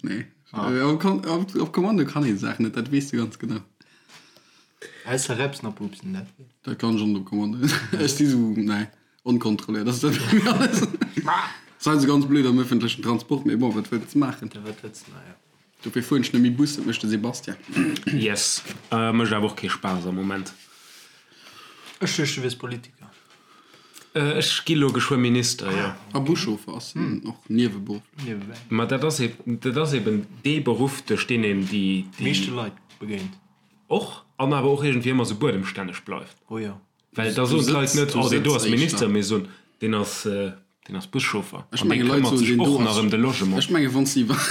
Nee. Op Kommando kann een d'Saach net, dat weess de ganz genau. Ausser Repsen a Pupsen, dat. Dat kann ech och net commandéieren. Ech si sou, nee, onkontrolléiert ass dat bei mir alles. Ass heiansdo ganz blöd am ëffentlechen Transport, mee bon, wat wëlls de maachen? Wat wëlls de maachen, jo. Dofir fueren ech net méi Bus, dat mécht de Sebastian. Yes, mécht awer och kee Spaass am Moment. Ech duecht du wiers Politiker. Ech gi lo geschwë Minister, jo. A Buschauffer ass en och nieweberufflech. Niewebäi. Ma dat ass dat ass eben dee Beruff, duerch deen een déi. Meeschte Leit begéint. Och, an awer och iergendwéi ëmmer sou buedemstänneg bleift. Oh jo. Well da soen d'Leit net, oh deen do ass Minister, mee soen, deen ass, deen ass Buschauffer. Ech An dee menge Leit këmmert soen, sech deen do och nach ass, ëm de Logement. ech menge wann s de iwwer,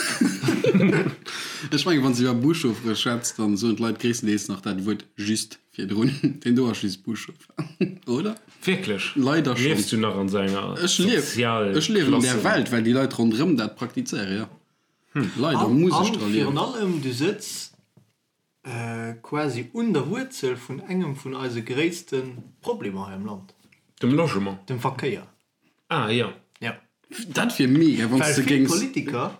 ech menge wann s de iwwer Buschauffere schwätz, dann soen d'Leit gréisstendeels nach dat Wuert just virdrun, deen do ass just Buschauffer, oder? Wierklech? Leider schonn. Liefs du nach an esou enger Ech lief, ech liewen an där Sozialklassen? Welt, well déi Leit ronderëm dat praktizéieren, jo. Leider An, muss ech an dra liewen. virun allem, du sëtz Quasi un der Wuerzel vun engem vun eise gréisste Problemer hei am Land. Dem Logement. Dem Verkéier. Ah jo. Jo. Dat wier mega, wann s Well de vill géings. Politiker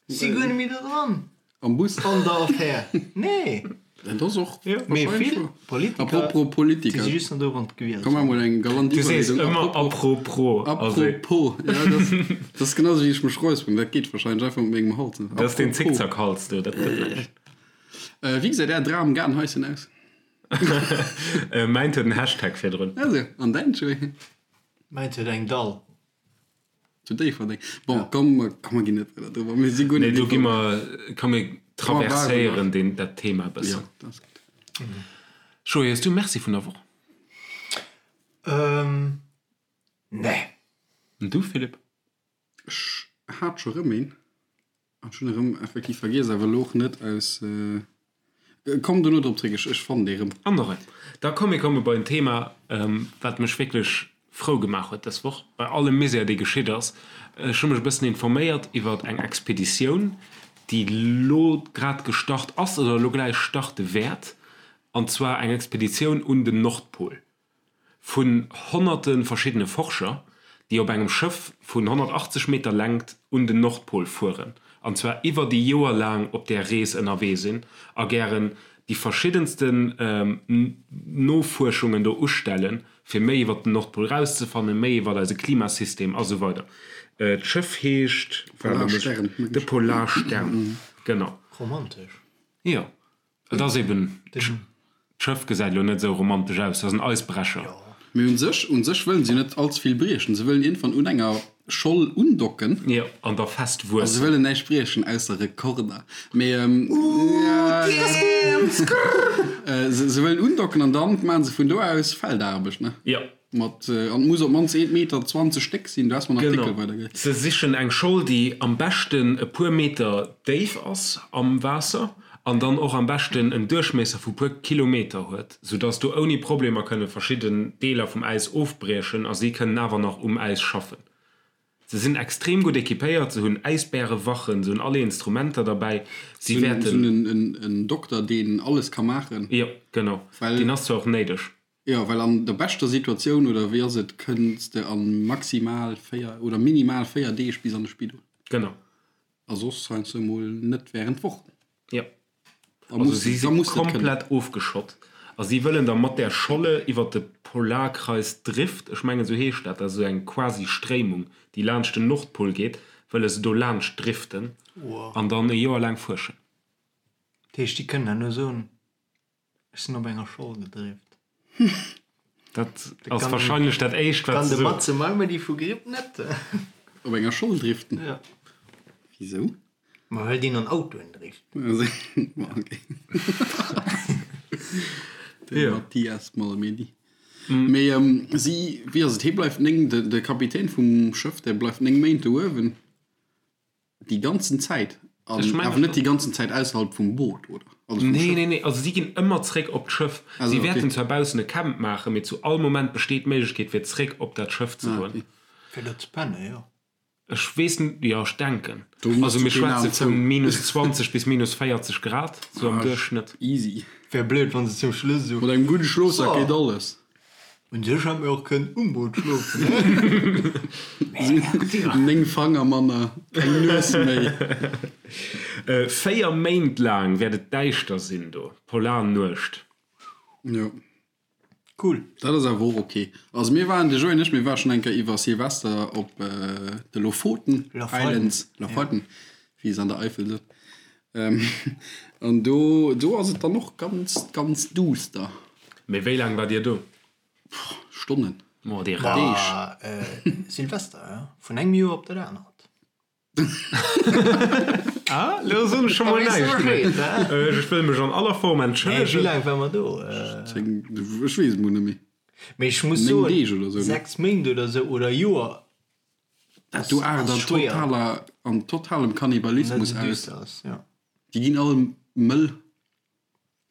si guer net méi do dran. Am Bus? An der Affär. Nee. Dat ass och Mee wahrscheinlech vill wouer. Politiker, Apropos Politiker. déi si just nach do wann d'gewielt Komm sinn. emol eng galant Du sees Iwwerleedung. ëmmer Apropos. apropos. Also. Apropos. Ja, dat, dat ass genau sou wéi ech mech räusperen. Dat geet wahrscheinlech einfach mat mengem Hals. Dat ass deen Apropos. Zickzackhals do, dat gëtt näischt. Wéi gesäit är Dram-Gaardenhaischen aus? Mäint huet en Hashtag virdrun. Also, an däin, Joé? Mäint huet eng Dall. Zu Déifferdeng. Bon, komm, komm, mer ginn net weider driwwer. Mir si guer Nee, net do gi informéiert. mer, komm mir traverséieren deen, dat Thema e bëssen. Jo, dat ass gutt. Joé, hues du e Merci vun der Woch? Ähm, nee. An du, Philippe? Ech hat scho rëm een. An ech hunn erëm effektiv vergiess, awer elo och net aus. Komm dono drop zréck, ech fannen dee rëm. An och en. Da komm mir komme bei en Thema, wat mech wierklech frou gemaach huet dës Woch, bei allem Misär dee geschitt ass. Ech hu mech e bëssen informéiert iwwer eng Expeditioun, déi lo grad gestart ass oder elo gläich starte wäert, an zwar eng Expeditioun un den Nordpol. vun honnerte verschiddene Forscher, déi op engem Schëff vun 180 Meter Längt un den Nordpol fueren, an zwar iwwer déi Joer laang op där Rees ënnerwee sinn a gären déi verschiddensten Nofuerschungen do ustellen, fir méi iwwer den Nordpol rauszefannen, méi iwwer eise Klimasystem a sou weider. D'Schëff heescht, de Polarstern, genau. Romantesch. Jo. Et ass eben, d'Schëff gesäit elo net esou romantesch aus, dat ass en Eisbrecher. Mee un sech, un sech wëllen se net allze vill briechen. Se wëllen iergendwann un enger Scholl undocken. Jo, an da fest A se wuessen. wëllen näischt briechen, ausser Rekorder. Mee se, se wëllen undocken an dann maachen se vun do aus Feldaarbecht, ne? Jo. Mat, an et muss op d'mannst 1,20 Meter déck sinn. Du has mer en Artikel Genau. weidergeleet. Se sichen eng Scholl, déi am beschten e puer Meter déif ass am Waasser an dann och am beschten en Duerchmiesser vu puer Kilometer huet, soudass do ouni Problemer kënne verschidden Deeler vum Äis ofbriechen a si kënnen awer nach um Äis schaffen. Se sinn extrem gutt equipéiert, se hunn Äisbärewachen, se hunn alle Instrumenter derbäi, si Se hunn wäerten. en, en Dokter, deen alles ka maachen. Jo, genau. Well. Deen ass zwar och néideg. Jo, well an der beschter Situatioun, oder wéi ass et, kënns de a maximal 4 oder minimal 4 Deeg bis an de Spidol. Genau. A soss heiansdo emol net während Wochen. Jo. Da Also muss si da si muss de et kënnen. komplett ofgeschott a si wëllen da mat där Scholle iwwer de Polarkreis Drift, ech mengen esou heescht dat, dat ass esou eng quasi Stréimung, déi laanscht den Nordpol geet, wëlle se do laanscht driften an dann e Joer laang fuerschen. Dat heescht, déi kënnen herno soen, Ech sinn op enger Scholl gedrift. Dat ass wahrscheinlech dat éischt wat Kann se de soen. Matze Malmedy vu Gripp net. Op enger Scholl driften? Ja. Wisou? Ma well deen an Autoen drift. Okay. De Ja. Mathias Malmedy. Mee si, wéi ass et, hie bleift 9, de Kapitän vum Schëff, dee bleift 9 Méint do uewen. Déi ganzen Zäit? An Ech mengen awer net schon. déi ganzen Zäit ausserhalb vum Boot, oder? Also vum Nee, Schëff? nee, nee, also si ginn ëmmer zréck op d'Schëff. Also, Si okay. wäerten zwar baussen e Camp maachen, mee zu all Moment besteet d'Méiglechkeet fir zréck op dat Schëff ze Ah, goen. okay. Fir do ze pennen, jo. Ech weess net, jo, ech denken. Do muss Also du mir keen schwätze Aen zou. vu minus 20 bis minus 40 Grad, sou am Ah, Duerchschnëtt. Easy. Wär blöd, wann se zum Schluss esou. Mat engem gudde Schlofsak So. geet alles. Un sech hätt mir och kënnen um Boot schlofen. 9 Fanger manner, keng Nues méi. 4 Méint laang wäert et däischter sinn do, Polarnuecht. Jo. Cool. Dat ass awer och ok. Also mir waren, de Joé an ech, mir ware schonn eng Kéier iwwer Silvester op de Lofoten Islands, Lofoten, wéi se an der Eifel sot. An do, do ass et dann och ganz, ganz duuster. Mee wéi laang waart Dir do? Stonnen. Oh, déi Deeg. Silvester, jo. Vun engem Joer op dat anert. Ah, lo soen ech scho mol näischt méi. Ech wëll mech an aller Form entschëllegen. Wéi laang ware mer do? Ech weess et mol net méi. Mee ech muss soen, 6 Méint oder sou, oder Joer. Dat do aart an totaler, an totalem Kannibalismus aus. Déi ginn all mëll.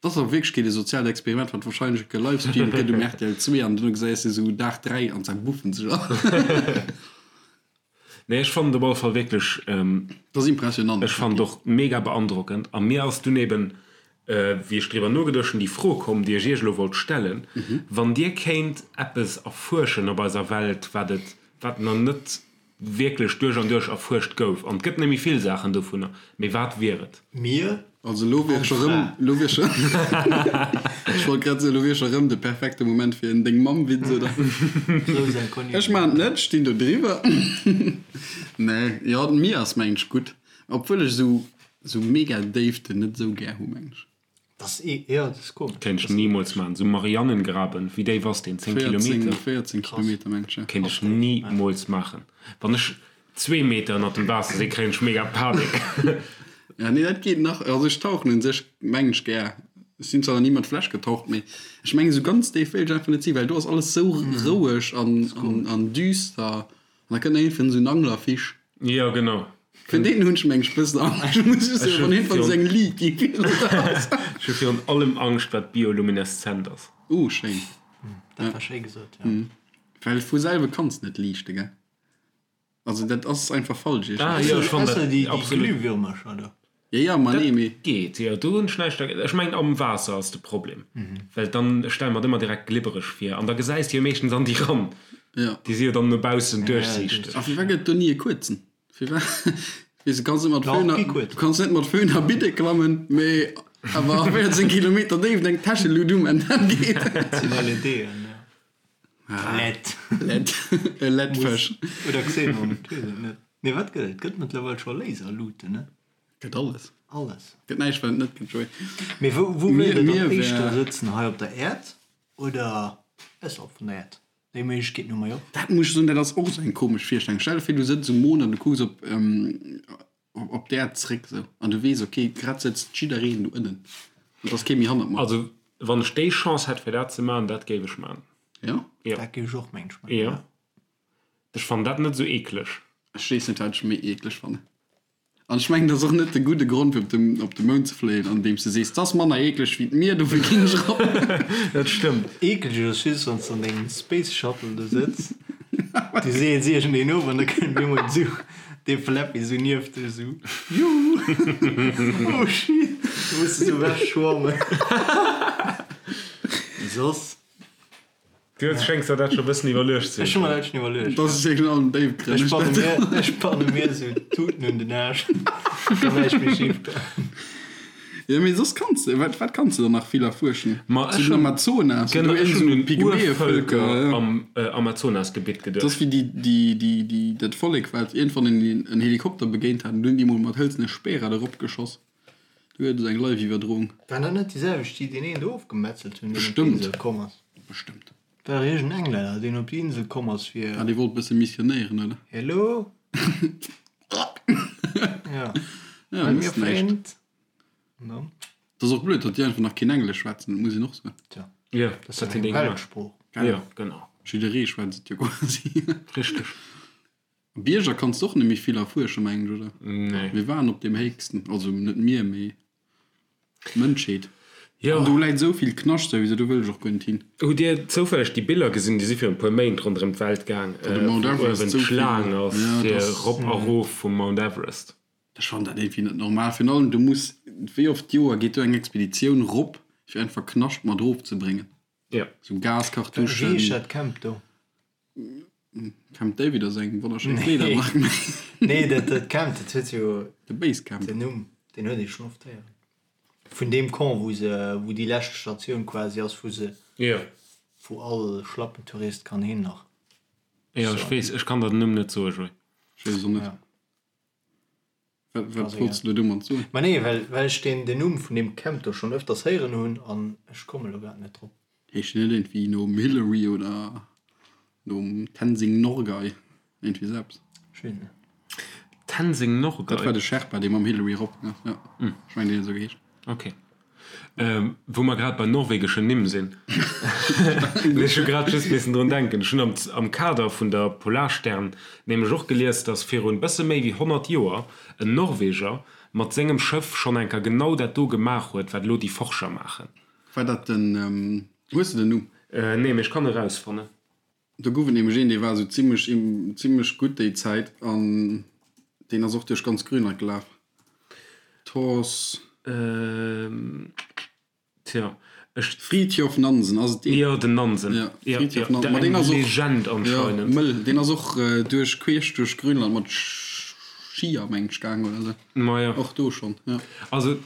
Dat ass a Wierklechkeet e soziaalt Experiment, wat warscheinlech gelivestreamt gëtt um rtl 2 an duerno gesäis de sou Dag 3 an zerbuffen sech all. Nee, ech fannen et op alle Fall wierklech. Dat ass impressionant. Ech fannen et och mega beandrockend. A mir ass dunn eben, wéi ech driwwer nogeduecht hunn, déi Fro komm, déi ech Iech elo wollt stellen, Wann Dir kéint eppes erfuerschen op eiser Welt, wat et, wat nach net wierklech duerch an duerch erfuerscht gouf, an et gëtt net méi vill Saachen dovunner, mee wat wier et? Mir Also elo wier scho rëm, elo wier scho, ech wollt grad soen, elo wier scho rëm de perfekte Moment fir en Deng-Mamm-Witz, oder? Ech maachen et net, ech stinn do driwwer. Nee, jo, d'Mier ass mengen ech gutt, obwuel ech esou, esou mega Déiften net esou gär hu mengen ech. Das e jo, dat ass komesch. Kéint ech nimools maachen. Sou Marianengraben, wéi déif ass deen? 10 Kilometer? 14 Kilometer mengen ech, jo. Kéint ech nimools maachen. Wann ech zwee Meter ënnert dem Waasser sinn, kréien ech mega Panik. Ja, nee, dat geet nach. Also ech tauchen un sech mengen ech gär. Ech sinn zwar nach ni mat Fläsch getaucht, mee ech mengen esou ganz déif wéilt ech einfach net sinn, well do ass alles sou roueg an, an düster. An da kënnt iergendwann esou en Anglerfisch. Jo, genau. Vun deenen hunn ech meng ech bëssen Angscht, muss ech soen, wann iergendwann esou eng Liit gi virun der ass. Ech hu virun allem Angscht, wat biolumineszent ass. Uh, schéin. Dat war schéi gesot, jo. Well vu selwe kanns net liichte, gell? Also dat ass einfach falsch Ah, jo, ech fannen dat déi absolut. Glühwürmercher do. Jo, jo, ma nee, mee. Geet, jo, do hunn ech näischt dergéint. Ech mengen am Waasser ass de Problem, well dann, ech stelle mer et ëmmer direkt glibbereg vir an da gesäis de jo meeschtens an déi ran. Jo. Déi si jo dann no baussen duerchsiichteg. A firwat gëtt et do ni e kuerzen? Firwat, weess de, kanns net mat Föhn a, du kanns net mat Föhn a Bidde klammen, mee awer a 14 Kilometer Déift eng Täschelut um an dat geet. Dat sinn LEDen, jo. LED. LED. E LED-Fësch. Oder Xenon, ech weess et net. Nee, wat gëtt et? Et gëtt mëttlerweil scho Laserluten, ne? Gëtt alles. Alles. Gëtt näischt, wat et net gëtt, Joé. Mee wou, wou wéilt Der dann éischter sëtzen? Hei op der Äerd oder ausserhalb vun der Äerd? Déi Méiglechkeeten hu mer jo och. Dat muss ech soen, dat ass och esou eng komesch Virstellung. Stell der vir, du sëtz um Mond an du kucks op, op d'Äerd zréck esou an du weess, ok, grad sëtzt jiddereen do ënnen an et ass kee méi hannert mer. Also, wann ech déi Chance hätt, fir dat ze maachen, dat géif ech maachen. Jo? Jo. Dat géif ech och, mengen ech, maachen, jo. Ech fannen dat net esou eekleg. Ech weess net, wat ech méi eekleg fannen. An ech mengen, dat ass och net de gudde Grond, fir op de, op de Mound ze fléien, andeems de sees, 't ass manner eekleg wéi d'Mier, dofir ginn ech erop. Dat stëmmt. Eekleg ass just, wann s de an dengem Space Shuttle do sëtz, du seels iergendeen of an da kënnt op eemol esou dee Flappy esou nieft dech esou, Juhu! Oh shit! Da muss de esou ewech schwammen. Soss. Du schéngs der dat scho bëssen iwwerluecht ze Ech hu mer dat schon iwwerluecht. Dat ass wierklech an den Déifgrënn. Ech banne mir, ech banne mir esou Tuten un den Aarsch, dann näischt méi schif goen. Jo, mee soss kanns de, wat, wat kanns de dann nach vill erfuerschen? Ma Zu ech den hunn, Amazonas, genau, do ech iergend hunn esou un Pygmäevölker, Urvëlker ja. am Amazonasgebitt Dat ass geduecht. wéi déi, déi, déi, déi, dat Vollek, wat iergendwann en, en Helikopter begéint hat, an dunn déi mol mat hëlzene Speerer erop geschoss. Do gëtt et eng Live-Iwwerdroung. Waren dat net déi selwecht, déi deen een do ofgemetzelt hunn, deen op Bestëmmt. d'Insel komm ass? Bestëmmt. War iergend en Englänner, deen op déi Insel komm ass fir. Ah, dee wollt bësse missionéieren, oder? Hello? Ja. Ja, I'm mësst your näischt. friend. An dann? Dat ass och blöd, datt déi einfach nach keen Englesch schwätzen, dat muss een och soen. Tja, Ja, dat ass dat jo hunn déi eng gemaach. Weltsprooch. Ja, genau. Jidderee schwätzt et jo quasi. Richteg. Bierger kanns de och net méi vill erfuerschen, mengen ech, oder? Nee. Mir waren op deem héchsten, also net mir, mee d'Mënschheet. Jo. An do läit esou vill Knascht souwisou, do wëll ech och guer net hin. Hutt Dir zoufälleg déi Biller gesinn, déi si virun e puer Méint ronderëm d'Welt gaang, Wou de Mount wou Everest uewen esou vill, d'Schlaang ass ja, fir dass. erop a rof vum Mount Everest? Ech fannen dat iergendwéi net normal. Virun allem, du muss, wéi oft d'Joer geet do eng Expeditioun rop, fir einfach Knascht mat erofzebréngen? Jo. Sou Wéi Gaskartuschen. heescht dat Camp do? Camp David ass eng wonnerschéin Kleedermark. Nee, dat, dat Camp, dat huet jo De Basecamp. den Numm, deen huet ee schonn oft héieren. Vun deem Camp, wou se, wou déi lescht Statioun quasi ass, wou se, Jo. wou all Schlappentourist kann hin nach. Jo, ech weess, ech kann der den Numm net soen, Joé. Ech weess et och net. Ja. Wat, wat wollts de domat soen? Ma nee, well, well ech deen, den Numm vun deem Camp do schonn öfters héieren hunn an ech komme lo grad net drop. Heescht deen net iergendwéi nom Hillary oder nom Tenzing Norgay? Iergendwéi esou eppes. Ech weess net. Tenzing Norgay? Dat war de Sherpa, dee mam Hillary erop gaang ass, jo. Ech mengen, deen huet esou geheescht. Ok. Wou mer grad bei norwegeschen Nimm sinn, ech hu grad just missen drun denken, ech hunn am am Kader vun der Polarstern nämlech och gelies, datt virun bësse méi wéi 100 Joer en Norweger mat sengem Schëff schonn eng Kéier genau dat do gemaach huet, wat elo déi Forscher maachen. War dat den, hues de den Numm? Nee, mee ech kann e rausfannen. Do gouf et nämlech een, dee war esou zimmlech, zimmlech gutt déi Zäit an deen ass och duerch ganz Grönland gelaf. Thors. Tja, ech. Fridtjof Nansen, ass et deen? Jo, den Nansen. Ja, Fridtjof Nansen. Ma deen ass och. Legend anscheinend. Jo, mëll. Deen ass och duerch, queesch duerch Grönland mat Skier, meng ech, gaang oder esou. Ma jo. Och do schonn, jo. Also,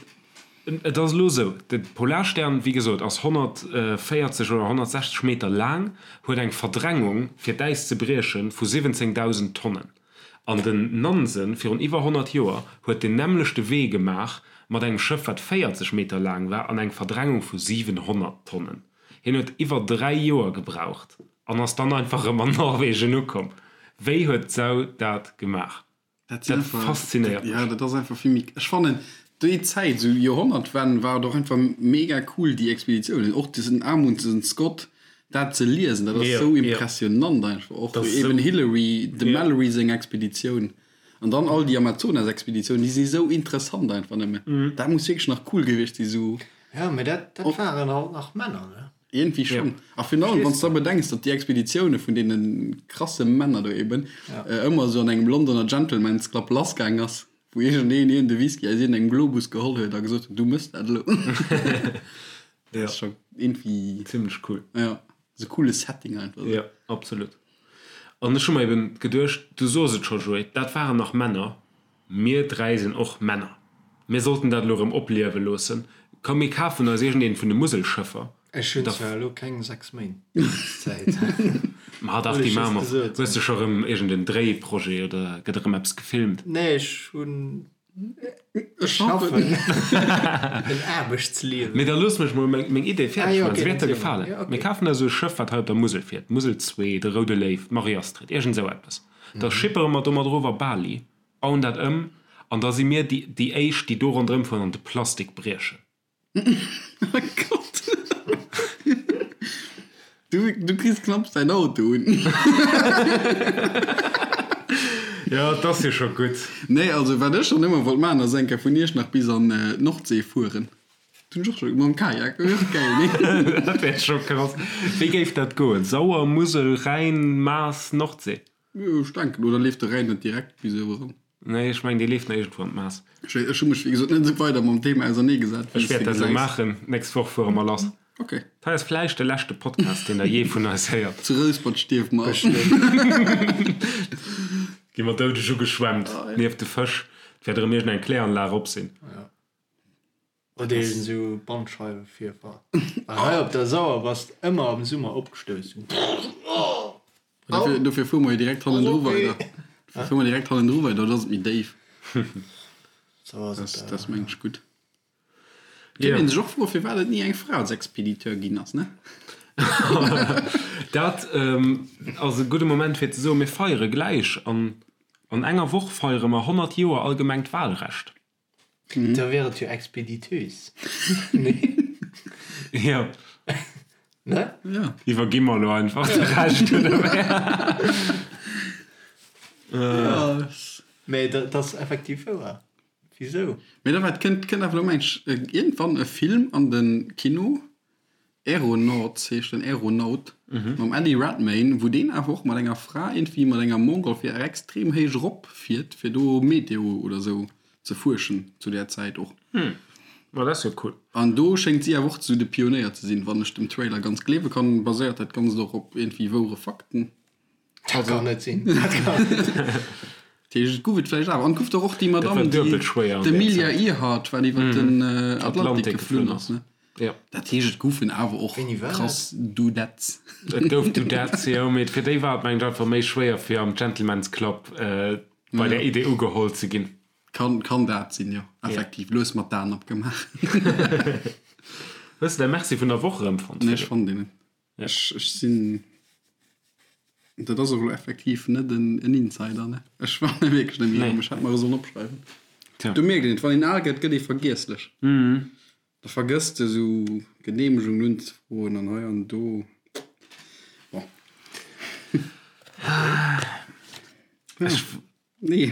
Et ass elo esou, de Polarstern, wéi gesot, ass 140 oder 160 Meter laang, huet eng Verdrängung, fir d'Äis ze briechen, vu 17.000 Tonnen. An den Nansen, virun iwwer 100 Joer, huet den nämmlechte Wee gemaach mat engem Schëff, wat 40 Meter laang war an eng Verdrängung vu 700 Tonnen. Hien huet iwwer 3 Joer gebraucht an ass dann einfach erëm an Norwegen ukomm. Wéi huet d'Sau dat gemaach? Dat Dat faszinéiert mech. Ja, dat ass einfach vill méi. Ech fannen déi Zäit, esou Joerhonnertwenn, war et och einfach mega cool déi Expeditiounen, och diesen Amundsen Scott, dat ze liesen, dat ass esou impressionant einfach. Och eben Hillary, dem Mallory seng Expeditioun an dann all déi Amazonas-Expeditiounen, déi si esou interessant einfach nëmmen. Dat muss wierklech nach cool gewiescht si sou. Ja, mee dat waren halt nach Männer, ne? Iergendwéi schonn. A virun allem, wann s de da bedenks, datt déi Expeditioune vun deene krasse Männer do eben ëmmer esou an engem Londoner Gentleman's Club lassgaang ass, wou iergendeen een de Whisky aus iergendengem Globus geholl huet a gesot huet, du mëss dat elo. Dat ass scho iergendwéi. Zimlech cool. Jo, esou coole Setting einfach esou. Jo, absolut. An ech hu mer eben geduecht, du soos et scho, Joé, dat waren nach Männer. Mir 3 sinn och Männer. Mir sollten dat elo erëm opliewe loossen. Komm mir kafen eis iergendeent vun de Muselschëffer. Ech hunn zwar elo keng 6 Méint Zäit. Ma dach, déi maache mer. Hues de scho erëm iergend en Dréiprojet oder gëtt erëm eppes gefilmt? Nee, ech hunn, ech schaffen en Aarbechtsliewen. Mee da looss mech mol meng Idee fäerdeg maachen, se wäert der gefalen. Mir kafen eis esou e Schëff, wat hei op der Musel fiert, d'Musel 2, de Roude Léiw, d'Marie-Astrid, iergend esou eppes. Da schippere mer domat erof a Bali, bauen dat ëm an da si mir déi éischt, déi do ronderëm fueren an de Plastik briechen. Oh Gott. Du, du kriss knapps däin Auto un. Jo, et ass jo scho gutt. Nee, also wat ech schonn ëmmer wollt maachen, ass eng Kéier vun Iechternach bis an d'Nordsee fueren. Dat hunn ech och scho, mam Kajak, dat wier och gäil, nee? Dat wär scho krass. Wéi géif dat goen? Sauer, Musel, Rhäin, Maas, Nordsee? Jo, ech denken. Oder leeft de Rhäin net direkt bis uewer eran? Nee, ech mengen, dee leeft nach iergendwou an d'Maas. Ech hu mech, wéi gesot, net esou weider mam Thema auserneegesat, wéi s Ech de wäert dat elo gesäis. maachen. D'nächst Woch fuere mer lass. Ok. Dat hei ass vläicht de leschte Podcast, deen der jee vun eis héiert. Zu Rouspert stierwe mer. Gi mer doudeg ugeschwemmt nieft de Fësch. Et wäert erëm iergendeng Kläranlag op sinn. Oder iergend esou Bandscheiwevirfall. Well hei op der Sauer bass de ëmmer am Summer opgestouss. Dofir, dofir fuere mer jo direkt hannendru weider. Dofir fuere mer direkt hannendru weider, do ass et méi déif. Sou ass et. Dat ass mengen ech gutt. Kéint een sech och froen, firwat et ni eng Fra als Expediteur ginn ass, ne? Dat ass e gudde Moment fir ze soen, mir feiere gläich an an enger Woch feiere mer 100 Joer allgemengt Wahlrecht. Da wier et jo Expediteuse, nee? Jo. Ne? Jo. Iwwergi mer elo einfach de Rescht, oder wéi? Jo. Mee dat ass effektiv wouer. Wisou? Mee da wat kënnt, kënnt awer elo mengt ech iergendwann e Film an de Kino, Aeronauts heescht den, Aeronaut, mam Eddie Redmayne, wou deen awer och mat enger Fra iergendwéi mat enger Montgolfière extrem héich erop fiert, fir do Meteo oder sou ze fuerschen zu där Zäit och. Ma dat ass jo cool. An do schéngt si awer och sou de Pionéier ze sinn, wann ech dem Trailer ganz gleewe kann. Baséiert dat Ganzt och op iergendwéi wouere Fakten. Dat kann net sinn. Dat kann net sinn. Dat Dat heescht, et gouf et vläicht awer. An et gouf dach och déi Madamm, déi, d'Amelia Earhart, wat iwwer den Atlantik geflunn ass, ne? Dat heescht, et goufen awer och krass Dudettes. Et gouf Dudettes, jo, mee fir déi war et, mengen ech, einfach méi schwéier, fir am Gentleman's Club bei där Idee ugeholl ze ginn. Kann, kann dat sinn, jo, effektiv. Lues mat d'Aen opgemaach. Hues de däi Merci vun der Woch erëmfonnt, Nee, ech fonnt deen net. Ech, ech sinn, dat ass och elo effektiv net en, en Insider, ne? Ech fannen e wierklech net méi erëm. Ech hätt mer e sollen opschreiwen. Tja. Do mierkt een et, wann een al gëtt, gëtt ee vergiesslech. Da vergëss de sou Geneemegungen unzefroen an hei an do. Bon. Ech, Nee.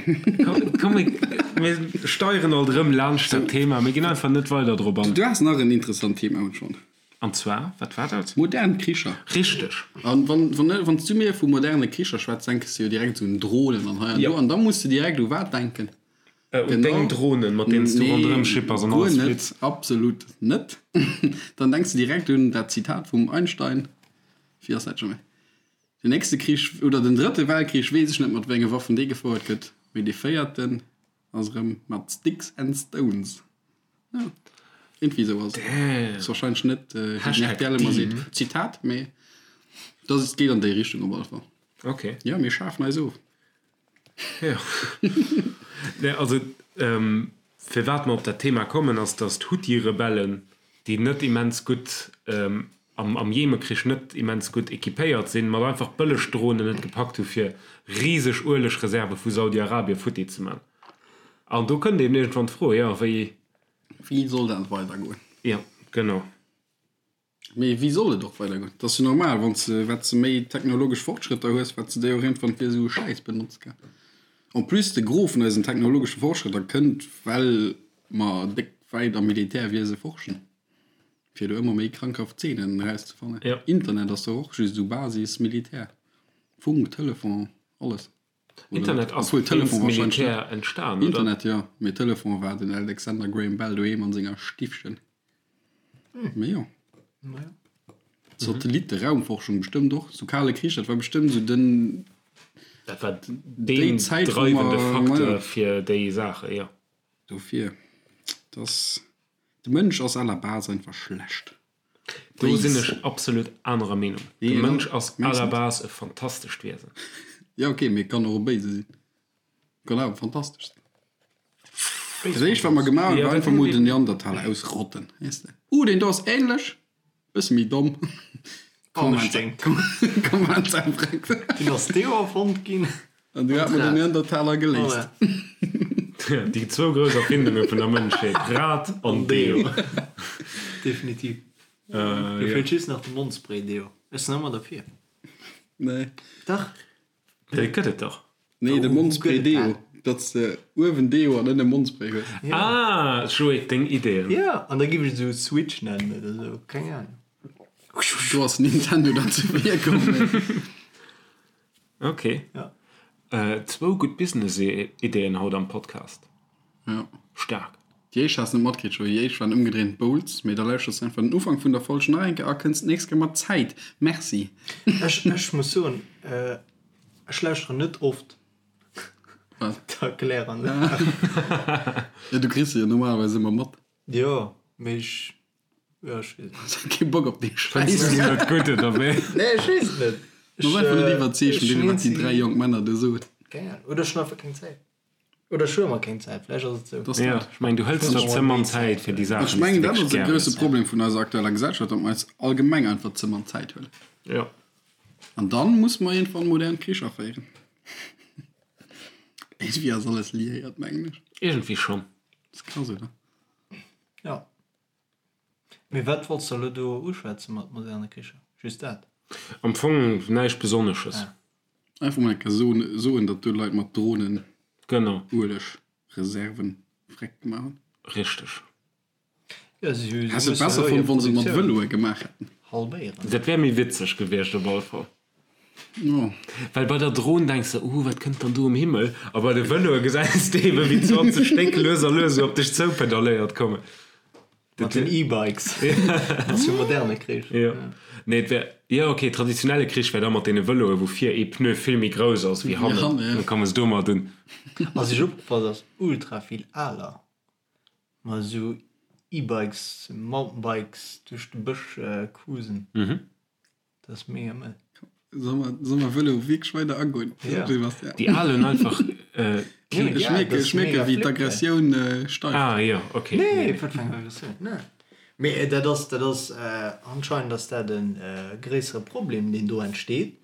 Komm, mir, mir steieren alt erëm laanscht dat Thema. Mir ginn einfach net weider drop an. Du has nach en interessant Thema hunn schonn. An zwar, wat war dat? Modern Kricher. Richteg. An wann, wann, wann s du mir vu moderne Kricher schwätz, denkes du jo direkt esou un Dronen an hei an do. An da muss de direkt u wat denken? Un deng Dronen, mat deenen s du ronderëm schippers an alles flitt. Guer net, absolut net. Dann denks de direkt un dat Zitat vum Einstein, wéi ass dat scho méi? Den nächste Krich, oder den drëtte Weltkrich, weess ech net mat wéi enge Waffen dee gefouert gëtt, mee dee véierten ass erëm mat Sticks and Stones. Jo, iergendwéi esou ass et. Ass warscheinlech net, wéi den rtl ëmmer seet, Zitat, mee dat ass, geet an déi Richtung op alle Fall. Ok. Jo, mir schafen eis of. Jo. Nee, also, firwat mer op dat Thema kommen, ass, datt d'Huthi-Rebellen, déi net immens gutt am am Jemekrich net immens gutt equipéiert sinn, mat einfach bëlleg Dronen et gepackt hu fir riseg Uelegreserve vu Saudi-Arabie futti ze man. An do kënnt eben iergendwann d'Fro, jo, wéi. Wéi soll dat weidergoen? Jo, genau. Mee wéi soll et och weidergoen? Et ass jo normal, wann s de, wat s de méi technologesch Fortschrëtter hues, wat s de déi och iergendwann fir esou e Schäiss benotz gell. En plus, de Gros vun eisen technologesche Fortschrëtter kënnt, well mer déck wäit am Militärwiese forschen. Fir do ëmmer méi krankhaft Zeenen erauszefannen. Ja. Internet ass doch och just esou Basis Militär. Funk, Telefon, alles. Oder Internet ass Obwuel Telefon wéinst wahrscheinlech Militär net. entstan, oder? Internet jo, mee Telefon war den Alexander Graham Bell doheem an senger Stiffchen. Mee jo. Naja. Satellitte, Raumforschung bestëmmt och. Sou Kale Krich, dat war bestëmmt sou den. Dat war Déi deen Zäit, wou dreiwende mer, Facteur majo. fir déi Saache, jo. Dofir, dass. De Mënsch ass à la base einfach schlecht. Do sinn ech absolut anerer Meenung. De Mënsch ass à la base e fantastescht Wiesen. Jo ok, mee kann och e béise sinn. Kann awer fantastesch sinn. Dat éischt wat mer gemaach hunn, war einfach mol den Neandertaler ausrotten, weess de. Uh, deen do ass ähnlech. Bësse méi domm. Dunn ass Deo erfonnt ginn. An du hat mer den Neandertaler geléist. Déi zwou grouss Erfindunge vun der Mënschheet, Rad an Deo. Definitiv. Do feelt just nach de Mondspray-Deo. Ech sinn ëmmer derfir. Nee. Dach. Dee gëtt et dach. Nee, de Mondspray Deo. Datt s de uewen Deo an ënne Mondspray hues. Ah, Joé, deng Ideeën. Jo, an da giff ech et esou Switch nennen oder esou, keng Ahnung. Do ass Nintendo dann ze vir komm. Ok. Ja. Zwou gutt Business-Ideeën haut am Podcast. Ja. Staark. Déi éischt has de net matkritt, Joé. Déi éischt waren ëmgedréint Bowls. Mee da lauschters de einfach den Ufank vun der Folg nach eng Kéier a kënns d'nächst Kéier mat Zäit. Merci. Ech, ech muss soen, ech lauschteren net oft Wat? d'Erkläranlag. Ja, du kriss se jo normalerweis ëmmer mat. Jo, mee ech, jo, ech weess net. Hues kee Bock op dee Schäiss? Fënns du net gutt, oder wéi? Nee, ech weess et net. Du bass einfach net iwwerzeegt vun deem, wat déi 3 jonk Männer do soen. Keng Ahnung. Oder ech hunn einfach keng Zäit. Oder ech hu ëmmer keng Zäit, vläicht ass et esou. Dass Ja, dat. ech mengen, du hëls der ze mann Zäit fir déi Saachen, Ech déi s mengen, de dat wierklech ass e gär grousse hues. Problem vun eiser aktueller Gesellschaft, datt mer eis allgemeng einfach ze mann Zäit huelen. Ja. An dann muss mer iergendwann modern Kricher féieren. Iergendwéi ass alles liéiert, mengen ech. Iergendwéi schonn. Dat ass krass, oder? Ja. Mee wat wollts de elo do uschwätze mat moderne Kricher? Just dat? Am Fong näischt Besonnesches. Ah. Einfach mol eng Kéier soen, soen, datt do Leit mat Dronen Genau. Uelegreserven freck gemaach hunn. Richteg. Ja, si hu, si Häss et mussen besser elo fonnt, hir wann se et mat Produktioun Vëloe gemaach hätten. halbéieren. Dat wär méi witzeg gewiescht op alle Fall. Jo. Well bei der Dron denks de, uh, wat kënnt dann do um Himmel? A bei de Vëloe gesäis de eben, wéi 20 Stéck lues a lues esou op dech zoupedalléiert kommen. Mat den E-Bikes. Ass jo moderne Krich. Jo. Nee, et wär, jo ok, traditionelle Krich wär da mat deene Vëloe wou vir ee Pneu vill méi grouss ass wéi hannen. Da komme se domat un. Ass iech opgefall, dass ultra vill Aler mat esou E-Bikes, Mountainbikes duerch de Bësch cruisen? Dat ass mega mëll. Soll mer, soll mer Vëlo wierklech weider agoen? Ja. Sebastian? Déi Al hunn einfach äh, keen. Ech mierken, ech mierken, wéi d'Aggressioun äh, steigt. Ah jo, ok. Nee, wat fir eng Aggressioun? Nee. Mee dat ass, dat ass, anscheinend ass dat e gréissere Problem, deen do entsteet,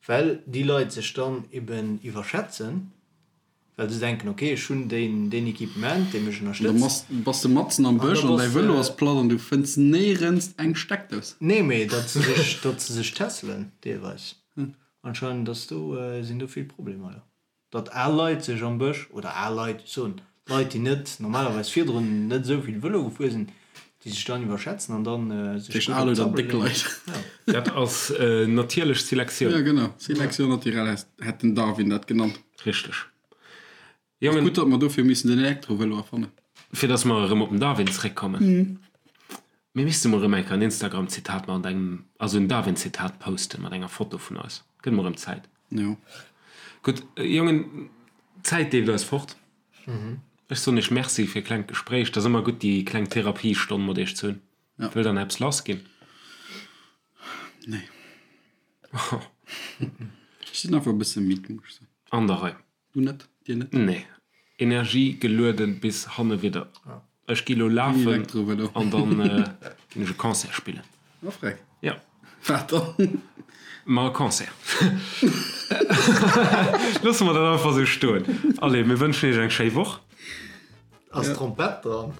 well déi Leit sech dann eben iwwerschätzen. Well se denken, ok, ech hunn deen, deen Equipement, dee mech An da ënnerstëtzt. bass de matzen am Bësch an däi Vëlo ass platt an du fënns néierens eng Steckdous. Nee, mee datt se sech, datt se sech tässelen deelweis. Anscheinend ass do, sinn do vill Problemer, jo. Datt al Leit sech am Bësch, oder al Leit, ech soen Leit, déi net normalerweis virdrun net esou vill Vëlo gefuer sinn, déi sech dann iwwerschätzen an dann sech gutt op d'Sabbel leeën. Dat ass natierlech Selektioun. Jo, genau, Sélection naturelle hätt den Darwin dat genannt. Richteg. Jongen. Gutt, datt mer dofir missen den Elektrovëlo erfannen. Fir datt mer erëm op den Darwin zeréckkommen. Mir misste mol erëm eng Kéier en Instagram-Zitat mat engem, also en Darwin-Zitat posten mat enger Foto vun eis. Gëtt mol erëm Zäit. Jo. Gutt, Jongen, d'Zäit leeft eis fort. Ech soen iech Merci fir klengt Gespréich. Et ass ëmmer gutt, déi kleng Therapiestonn mat iech ze hunn. Wëllt der nach eppes lassginn? Nee. Ech sinn einfach e bësse midd, muss ech soen. An der Rei. Du net? Dir net? Nee. Energie gelueden bis hanne widder. Ech gi lo lafen an dann ginn ech e Concert spillen. Oh freck. Ja. Wat dann? Ma e Concert. Loosse mer dat einfach esou stoen. Allez, mir wënschen iech eng schéi Woch. Ass Trompett dran?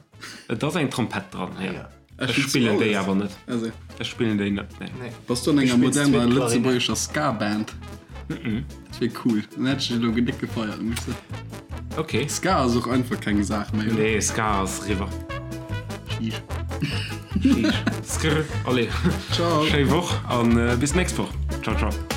Et ass eng Trompett dran, jo. Ech spillen déi awer net. Ech spillen déi net, nee. Bass du an enger moderner lëtzebuergescher Ska-Band? Dat wier cool. Dann hätt ech dech elo déck gefeiert, muss ech soen. Ok. Ska ass och einfach keng Saach méi, oder? Nee, Ska ass eriwwer. Sheesh. Sheesh. Skrr. Allez. Ciao. Schéi Woch an bis d'nächst Woch. Ciao, ciao.